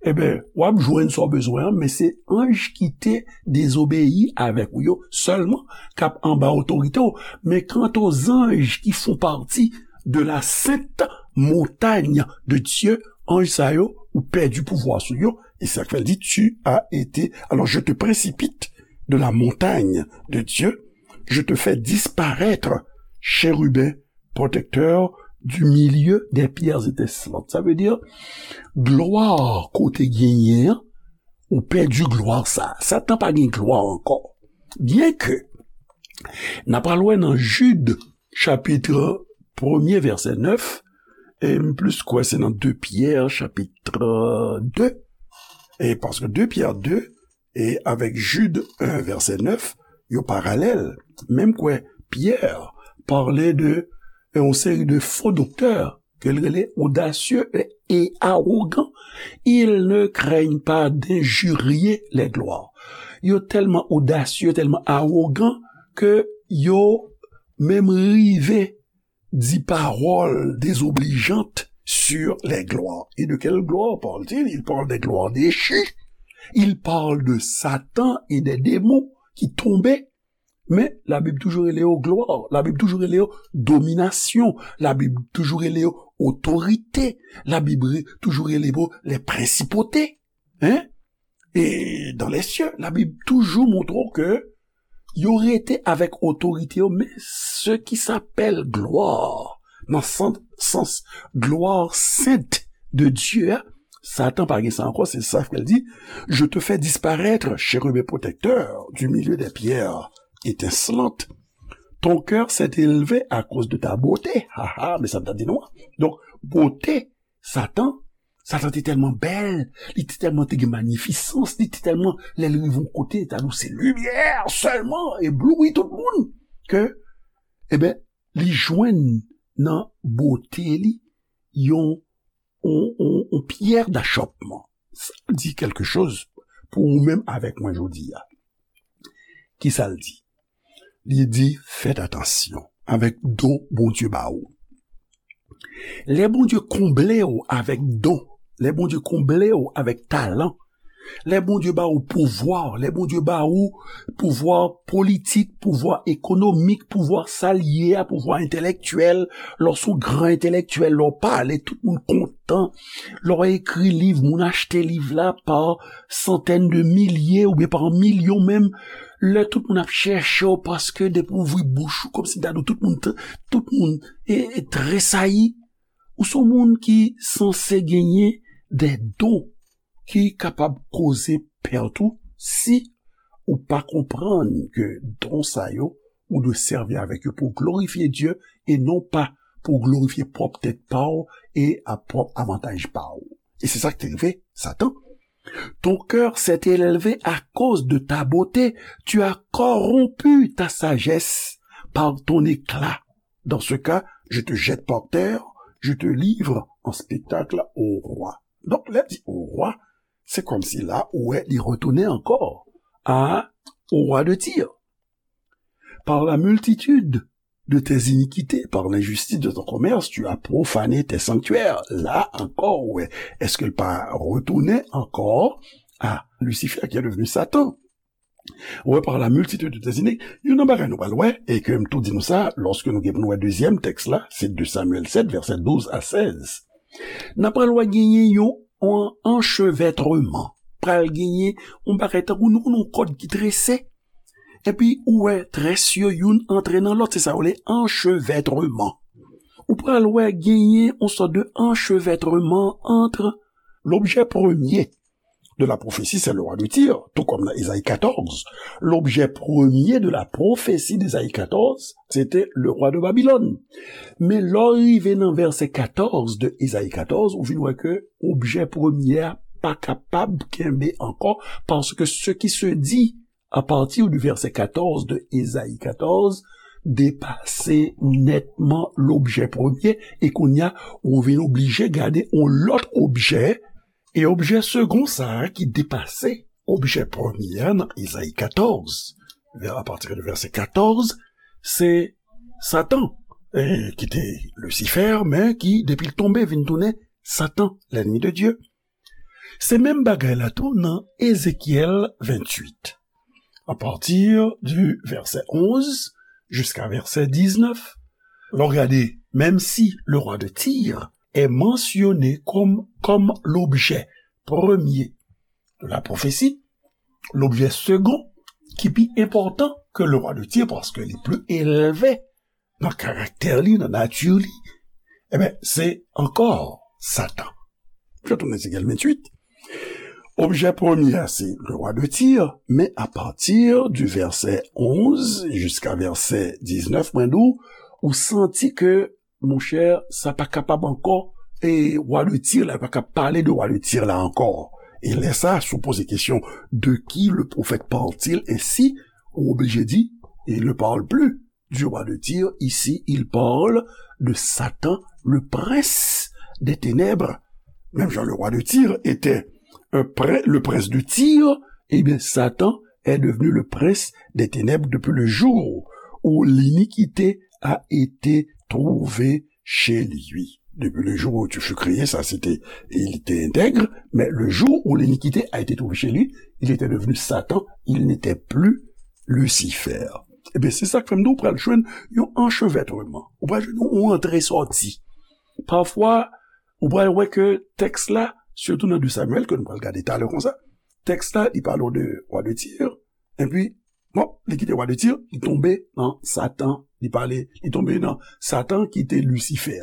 Ebyen, w ap jwenn sa w bezwen an, men se anj ki te dezobeyi avèk ou yo sèlman k ap anba otorite w. Men kanta zanj ki fè pati de la sainte montagne de Dieu, anj sa yo, ou pèdi pouvwa sou yo, e sa k fè l di, tu as été, alors je te précipite de la montagne de Dieu, je te fais disparaître, chérubin protecteur, du milieu des pierres étincelantes. Sa vle di, glwa ke w te genyen an, ou pèdi glwa sa. Satan pa gen glwa ankò. Byenke, n ap al wè nan Jid, chapit premye, vèsè nèf, e m plis kwè se nan de Pyè, chapit de, e paske de Pyè de, e avèk Jid en, vèsè nèf, yo paralèl. Menm kwè Pyè pale de yon seri de fo doktè ke l rele odasye e, e awogan. Ils ne craignent pas d'injurier les gloires. Yo tèlman odasye, tèlman awogan ke yo menm rive di pawòl dezoblijant sur les gloires. Et de quelle gloire parle-t-il? Il parle des gloires déchues. Il parle de Satan et des démons ki tonbe. Men, Labib toujou rele yo glwa. Labib toujou rele yo dominasyon. Labib toujou rele yo otorite. Labib re-, toujou rele yo les principautés. Hein? Et dans les cieux, Labib toujou montre w ke yo rete avèk otorite yo, men ce qui s'appelle gloire, nan sans, sans gloire sainte de Dieu a, Satan pa gen sa ankò, se sa ke l di, je te fais disparaître, chérubin protecteur, du milieu des pierres étincelantes. Ton cœur s'est élevé à cause de ta beauté. Ha ha, men sa m t ap di nou an. Donk, bote Satan, Satan te tèlman bèl, li te tèlman te gen manyifisans, li te tèlman, lè l rive yon kote, ta di w se limyè sèlman, ebloui tout moun, ke, ebyen, li jwenn nan bote li yon, yon, yon, yon pyè dachòpman. Sa di kèlke choz pou ou menm avèk mwen jodi a. Ki sa l di? Li di, fèt atansyon avèk don Bondye ba ou. Lè Bondye konble w avèk don, lè Bondye konble w avèk talan, lè Bondye ba ou pouvwa, lè Bondye ba ou pouvwa politik, pouvwa ekonomik, pouvwa sa l ye a, pouvwa entèlektyèl, lè w se yon gran entèlektyèl, lè w pale, tout moun kontan, lè w ekri liv, moun achte liv la pa santèn de milye oubyen pa milyon menm, lè tout moun ap chèche w paske depi w ouvri bouch ou, kòmsi m ta di w tout moun, tout moun e, e tresayi. Ou se yon moun ki sanse genyen de don ki kapab koze pèt ou si ou pa konprann ke don sa yo, ou dwe sèvi avèk yo pou glorifye Dye e non pa pou glorifye pwòp tèt pa w e a pwòp avantaj pa w. E se sa k te rive Satan. Ton cœur s'est élevé à cause de ta beauté, tu as corrompu ta sagesse par ton éclat. Dans ce cas, je te jette par terre, je te livre en spectacle au roi. Donk, lè di au roi, se kòmsi la, ou wè, li retounen ankò a, au roi de Tyr. Par la multitude de tes iniquités, par l'injustice de ton commerce, tu as profané tes sanctuaires. La ankò, ou wè, èske l pa retounen ankò a Lucifer qui est devenu Satan? Ou wè, par la multitude de tes iniquités, youn nan bagay nou pral wè, e ke m tou di nou sa, lòske nou gen pou nou wè dezyèm tèks la, se de Samyèl sèt, vèsè douz a sèz. N ap pral wè genyen yon, yon anchevètreman. Pral genyen yon bagay tankou nou konn yon kòd ki trese. Epi ou wè très yo youn antre nan lòt, se sa yo rele anchevètreman. Ou pral wè genyen yon sòt de anchevètreman ant lobjè premye de la prophétie, c'est le roi de Tyr, tout comme dans Ésaïe quatorze. L'objet premier de la prophétie d'Ésaïe quatorze, c'était le roi de Babylone. Men lè w rive nan vèsè katòz de Ésaïe quatorze, ou vin wè ke objè premye a pa kapab kenbe ankò, paske ce qui se dit à partir du verset quatorze de Ésaïe quatorze depase nètman lobjè premye, e kounye a, ou vin oblije gade yon lòt objè, e objè segon sa a ki depase objè premye a nan Ésaïe quatorze, vers, à partir de verset quatorze, se Satan, e, ki te Lucifer, men ki, depi l tonbe, vin tounen Satan, l'ennemi de Dieu. Se menm bagay la tou nan Ézéchiel vingt-huit, à partir du verset onze jusqu'à verset dix-neuf. Lè w gade, menm si le roi de Tyr est mentionné comme, comme l'objet premier de la prophétie, l'objet second, ki pi enpòtan ke le roi de Tyr, paske li pli elve nan karaktè li, nan nati li, ebyen, se ankò Satan. Je tourne Ézéchiel vingt-huit. Objè premye a, se le roi de Tyr, men à partir du verset onze jusqu'à verset dix-neuf, mwen di w, ou santi ke, monchè, sa pa kapab ankò, e roi de Tyr la, pa ka pale de roi de Tyr la ankò. E lè sa, si w poze kesyon, de qui le prophète parle-t-il ainsi, ou oblije di, il ne parle plus du roi de Tyr, ici, il parle de Satan, le prince des ténèbres. Même Jean, le roi de Tyr était un prin-, le prince de Tyr, eh bien, Satan est devenu le prince des ténèbres depuis le jour où l'iniquité a été trouvée chez lui. Depuis le jour où tu fus créé, ça c'était, il était intègre, mais le jour où l'iniquité a été trouvée chez lui, il était devenu Satan, il n'était plus Lucifer. Ebyen, se sa k fè m di w pral jwenn yon anchevètreman. Ou pral jwenn yon antre sòti. Pafwa, ou pral wè ke tèks la, sitou nan de Samyèl, ke nou pral gade talè konsa, tèks la, li pale w de wa de Tir, epi, bon, li kite wa de Tir, li tonbe nan Satan, li pale, li tonbe nan Satan ki te Lisifè.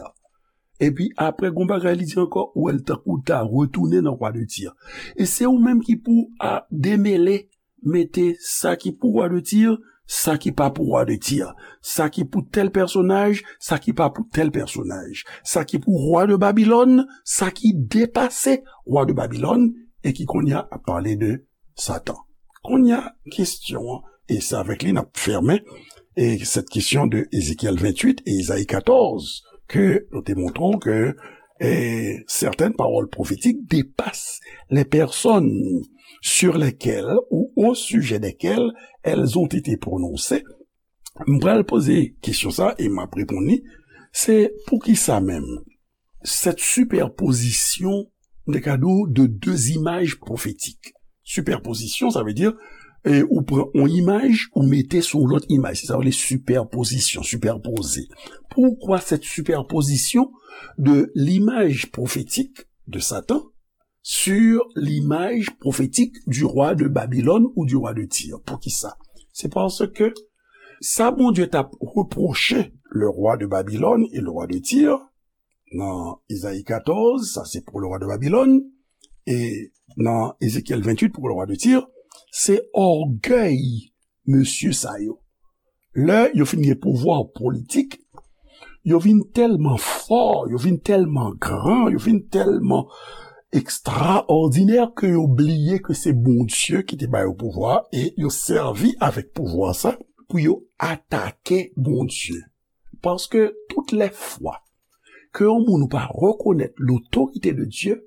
Epi apre, gon bagay li di ankò, ou wè l tankou l ta retounen nan wa de Tir. E se ou menm ki pou a demele, mete sa ki pou wa de Tir, sa ki pa pou wa de Tir, sa ki pou tèl pèsonaj, sa ki pa pou tèl pèsonaj, sa ki pou wa de Babilòn, sa ki depase wa de Babilòn, e ki kounye a ap pale de Satan. Kounye a, kesyon an, e se avèk li n ap fèmen, Et cette question de Ézéchiel vingt-huit et Isaïe quatorze, que nous démontrons que et certaines paroles prophétiques dépassent les personnes sur lesquelles ou au sujet desquelles elles ont été prononcées. M pral poze kesyon sa e m ap reponn li. Se poukisa menm cette superposition, m te ka di w, de deux images prophétiques? Superposition, ça veut dire, e, ou pran yon imaj, ou mete sou yon lòt imaj. Se sa yo rele superposition, superposer. Pourquoi cette superposition de l'image prophétique de Satan sur l'image prophétique du roi de Babylone ou du roi de Tyr? Poukisa? Se paske sa Bondye t ap repwoche le roi de Babylone et le roi de Tyr, nan Izayi katòz, sa se pou le roi de Babylone, e nan Ezekyèl venntuit pou le roi de Tyr, se ògèy mesye sa yo. Lè yo fin gen pouvwa politik, yo vin tèlman fò, yo vin tèlman gran, yo vin tèlman ekstraòdinè ke yo bliye ke se Bondye ki te ba yo pouvwa e yo sèvi avèk pouvwa sa pou yo atake Bondye. Paske tout lè fwa ke yon moun ou pa rekonèt lotorite de Dye,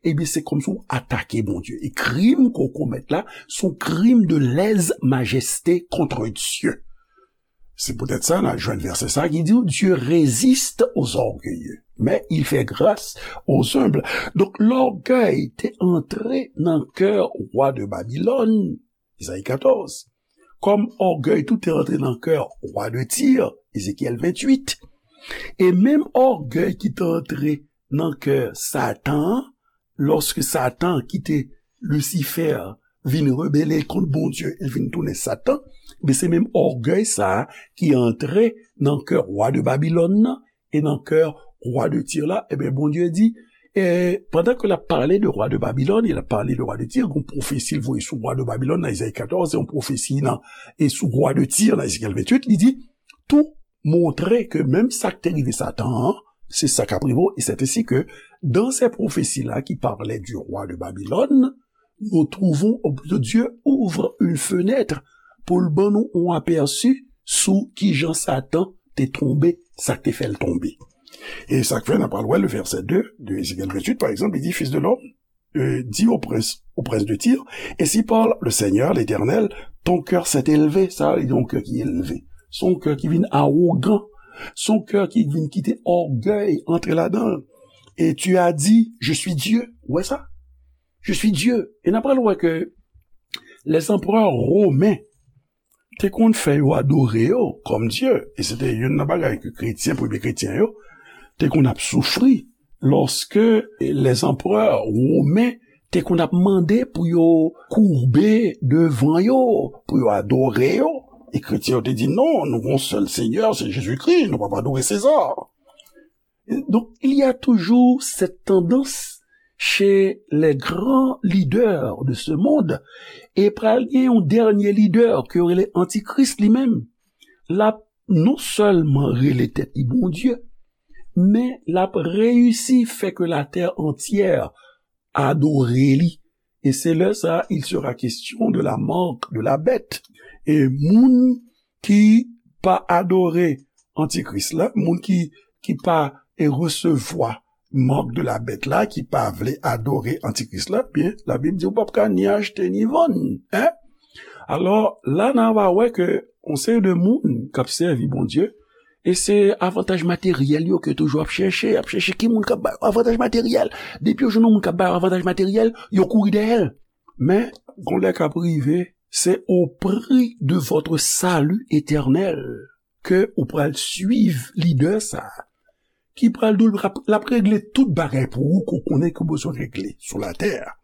ebyen, se kòmsi w atake Bondye. E krim ke w komèt la, se yon krim de lèzmajeste kont Dye. Se poutèt sa, n a jwenn vèsè sa ki di w, Dieu résiste aux orgueilleux, mais il fait grâce aux humbles. Donk, lògèy te antre nan kè wa de Babilòn, Izayi katòz. Kòm ògèy tou te antre nan kè wa de Tir, Ezekyèl venntuit. E menm ògèy ki te antre nan kè Satan an, lòske Satan ki te Lisifè vin rebele kont Bondye, e vin tounen Satan, men se menm ògèy sa a ki antre nan kè wa de Babilòn nan, e nan kè wa de Tir la, ebyen, Bondye di, e, pandan ke l ap pale de wa de Babilòn, e l ap pale de wa de Tir, gon pwofesi l voye sou wa de Babilòn nan Izayi katòz, e yon pwofesi nan, e sou wa de Tir nan Ezekyèl venntuit, li di, tou montre ke menm sa k te rive Satan an, se sa k ap rive w. E c'est ainsi que dans ces prophéties-là qui parlaient du roi de Babylone, nous trouvons, ou plutôt Dieu ouvre une fenêtre pou l ban nou yon apèsi sou kijan Satan te tonbe, sa k te fè l tonbe. E sa k fè n ap pral wè le verset deux de Ezekyèl venntuit, par exemple, il dit, Fils de l'homme, euh, dis au prince, au prince de Tyr, ainsi parle le Seigneur, l'Éternel, ton cœur s'est élevé, sa vle di yon kè ki elve, se yon kè ki vin awogan, se yon kè ki vin kite ògèy antre ladan l. Et tu as dit, je suis Dieu. Ou wè sa? Je suis Dieu. E n ap pral wè ke lèzanprè women te konn fè yo adore yo kòm dye. E se te youn nan bagay ke kretyen, premye kretyen yo, te konn ap soufri lòske lèzanprè women te konn ap mande pou yo koube devan yo, pou yo adore yo. E kretyen yo te di, non, nou gon sèl Senyè, se Jezikri, nou p ap adore Seza. Donc, il y a toujours cette tendance chez les grands leaders de ce monde, e pral gen yon dènye lidè ke yo rele antikris li menm. L ap non sèlman rele tèt li Bondye, men l ap reyisi fè ke latè antyè adore li. E se lè sa, il sera question de la marque de la bête. E moun ki pa adore antikris la, moun ki, ki pa e resevwa marque de la bête la, ki pa vle adore antikris la, byen, Labib di w p ap ka ni achte ni vann, en? Alò, la n a va wè ke yon seri de moun k ap sèvi Bondye, e se avantaj materyèl yo ke toujou ap chèche, ap chèche ki moun k ap ba yo avantaj materyèl. Depi yo jwenn yon moun k ap ba yo avantaj materyèl, yo kouri dèyè l. Men, gon lè k ap rive, se au prix de votre salut éternel ke ou pral swiv lidè sa a, ki pral di w l ap, l ap regle tout bagay pou ou ke w konnen ke w bezwen regle sou latè a.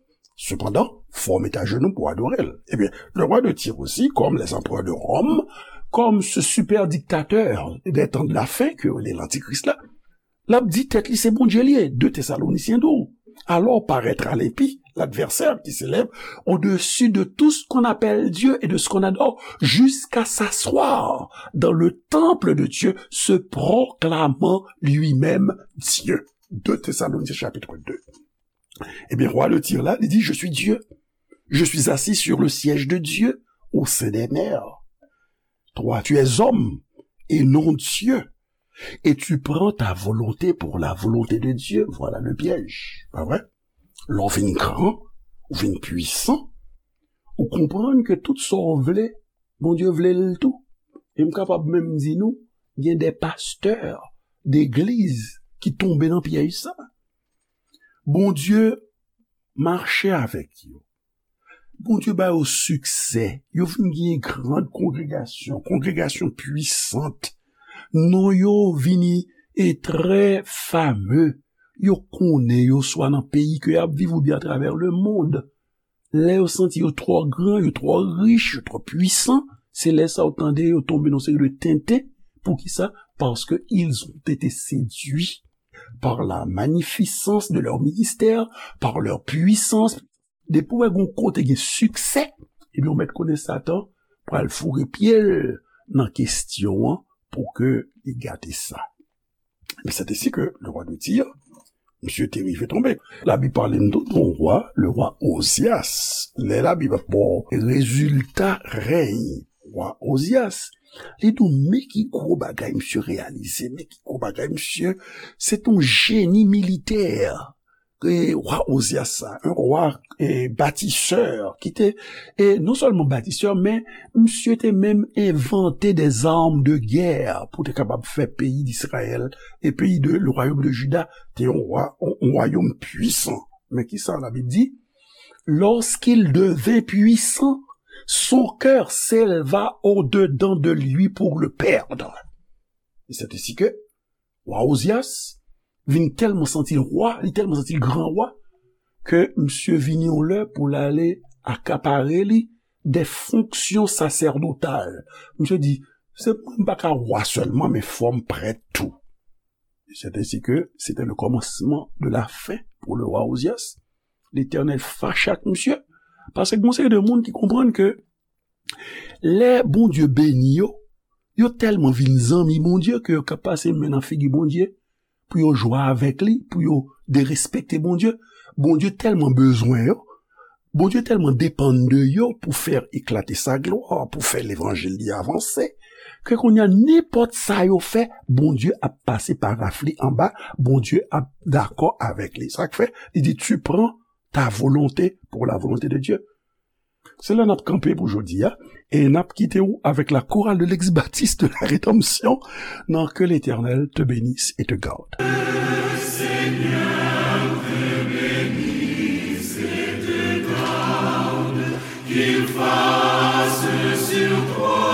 Sepandan, fò w met ajenou pou w adore l. Ebyen, le roi de Tyr aussi, comme les empereurs de Rome, comme ce super dictateur des temps de la fin ke yo rele lantikris la, l ap di tèt li se Bondye li ye, de Tesalonisyen di w. Alors paraîtra l'impie, l'adversaire qui s'élève au-dessus de tout ce qu'on appelle Dieu et de ce qu'on adore, jusqu'à s'asseoir dans le temple de Dieu, se proclamant lui-même Dieu. De Thessaloniciens chapitre deux. Ebyen, wa de Tir la, li di, je suis Dieu. Je suis assis sur le siège de Dieu au sein des mers. Toi, tu es homme et non Dieu. Et tu prends ta volonté pour la volonté de Dieu. Voilà le piège. Pa vre? Lè w vin gran, ou vin pwisan, ou konprann ke tout sa w vle, Bondye vle l tou. E m kapab menm di nou, gen de pastè degliz ki tonbe nan pyèj sa. Bondye mache avèk yo. Bondye ba yo siksè. Yo vin gen gran kongregasyon, kongregasyon pwisant. Non yo vini e trè fame. Yo konnen yo swa nan peyi ke y ap viv oubyen atravè lemonn. Lè yo santi yo twò gran, yo twò rich, yo twò pwisan, se lè sa w tande yo tonbe nan seri de tenten. Poukisa? Parce que ils ont été séduits par la magnificence de leur ministère, par leur puissance. Depi w wè gon kote gen siksè, ebyen w mèt konnen Satan pral foure pye l nan kesyon an pou ke li gate sa. Men c'est ainsi que le roi de Tyr, misye te rive tonbe. Labib pale n tou de yon wa, le wa Ozyas. Lè Labib ap ba w rezilta rèy wa Ozyas, li di w men ki gwo bagay misye reyalize, men ki gwo bagay misye, se te yon jeni militè. E wa Ozyas sa, un roi, e, bâtisseur, ki te, e non sèlman batisè, men misye te menm envante des armes de guerre pou te kapab fè peyi d'Israël e peyi de, le royaume de Juda, te yon wa, yon, yon wayòm pwisan. Men ki sa Labib di? Lorsqu'il devint puissant, son cœur s'éleva au-dedans de lui pour le perdre. Et c'est ainsi que wa Ozyas vin tèlman santi l wa, li tèlman santi l gran wa, ke misye vini yon lè pou l ale akapare li de fonksyon sasèdotal. Misye di, se mwen m pa ka wa sèlman, men fò m prèt tou. C'est ainsi que c'était le commencement de la fin pour le roi Ozyas. Letènèl fache ak misye, paske gon seri de moun ki konprann ke lè Bondye beni yo, yo tèlman vin zanmi Bondye ke yo ka pase men nan figi Bondye pou yo jwe avèk li, pou yo derespekte Bondye. Bondye tèlman bezwen yo, Bondye tèlman depann de yo pou fè eklate sa glwa, pou fè levanjil li avanse, ke kounye a nenpòt sa yo fè, Bondye ap pase paraf li anba, Bondye ap dakò avèk li. Sa k fè, li di, tu prends ta volonté pour la volonté de Dieu. Se la n ap kanpe pou jodi a, e n ap kite w avèk la chorale de l'ex-baptiste de la Rédemption nan Que l'Éternel te bénisse et te garde. Seigneur te bénisse et te garde, qu'il fasse sur toi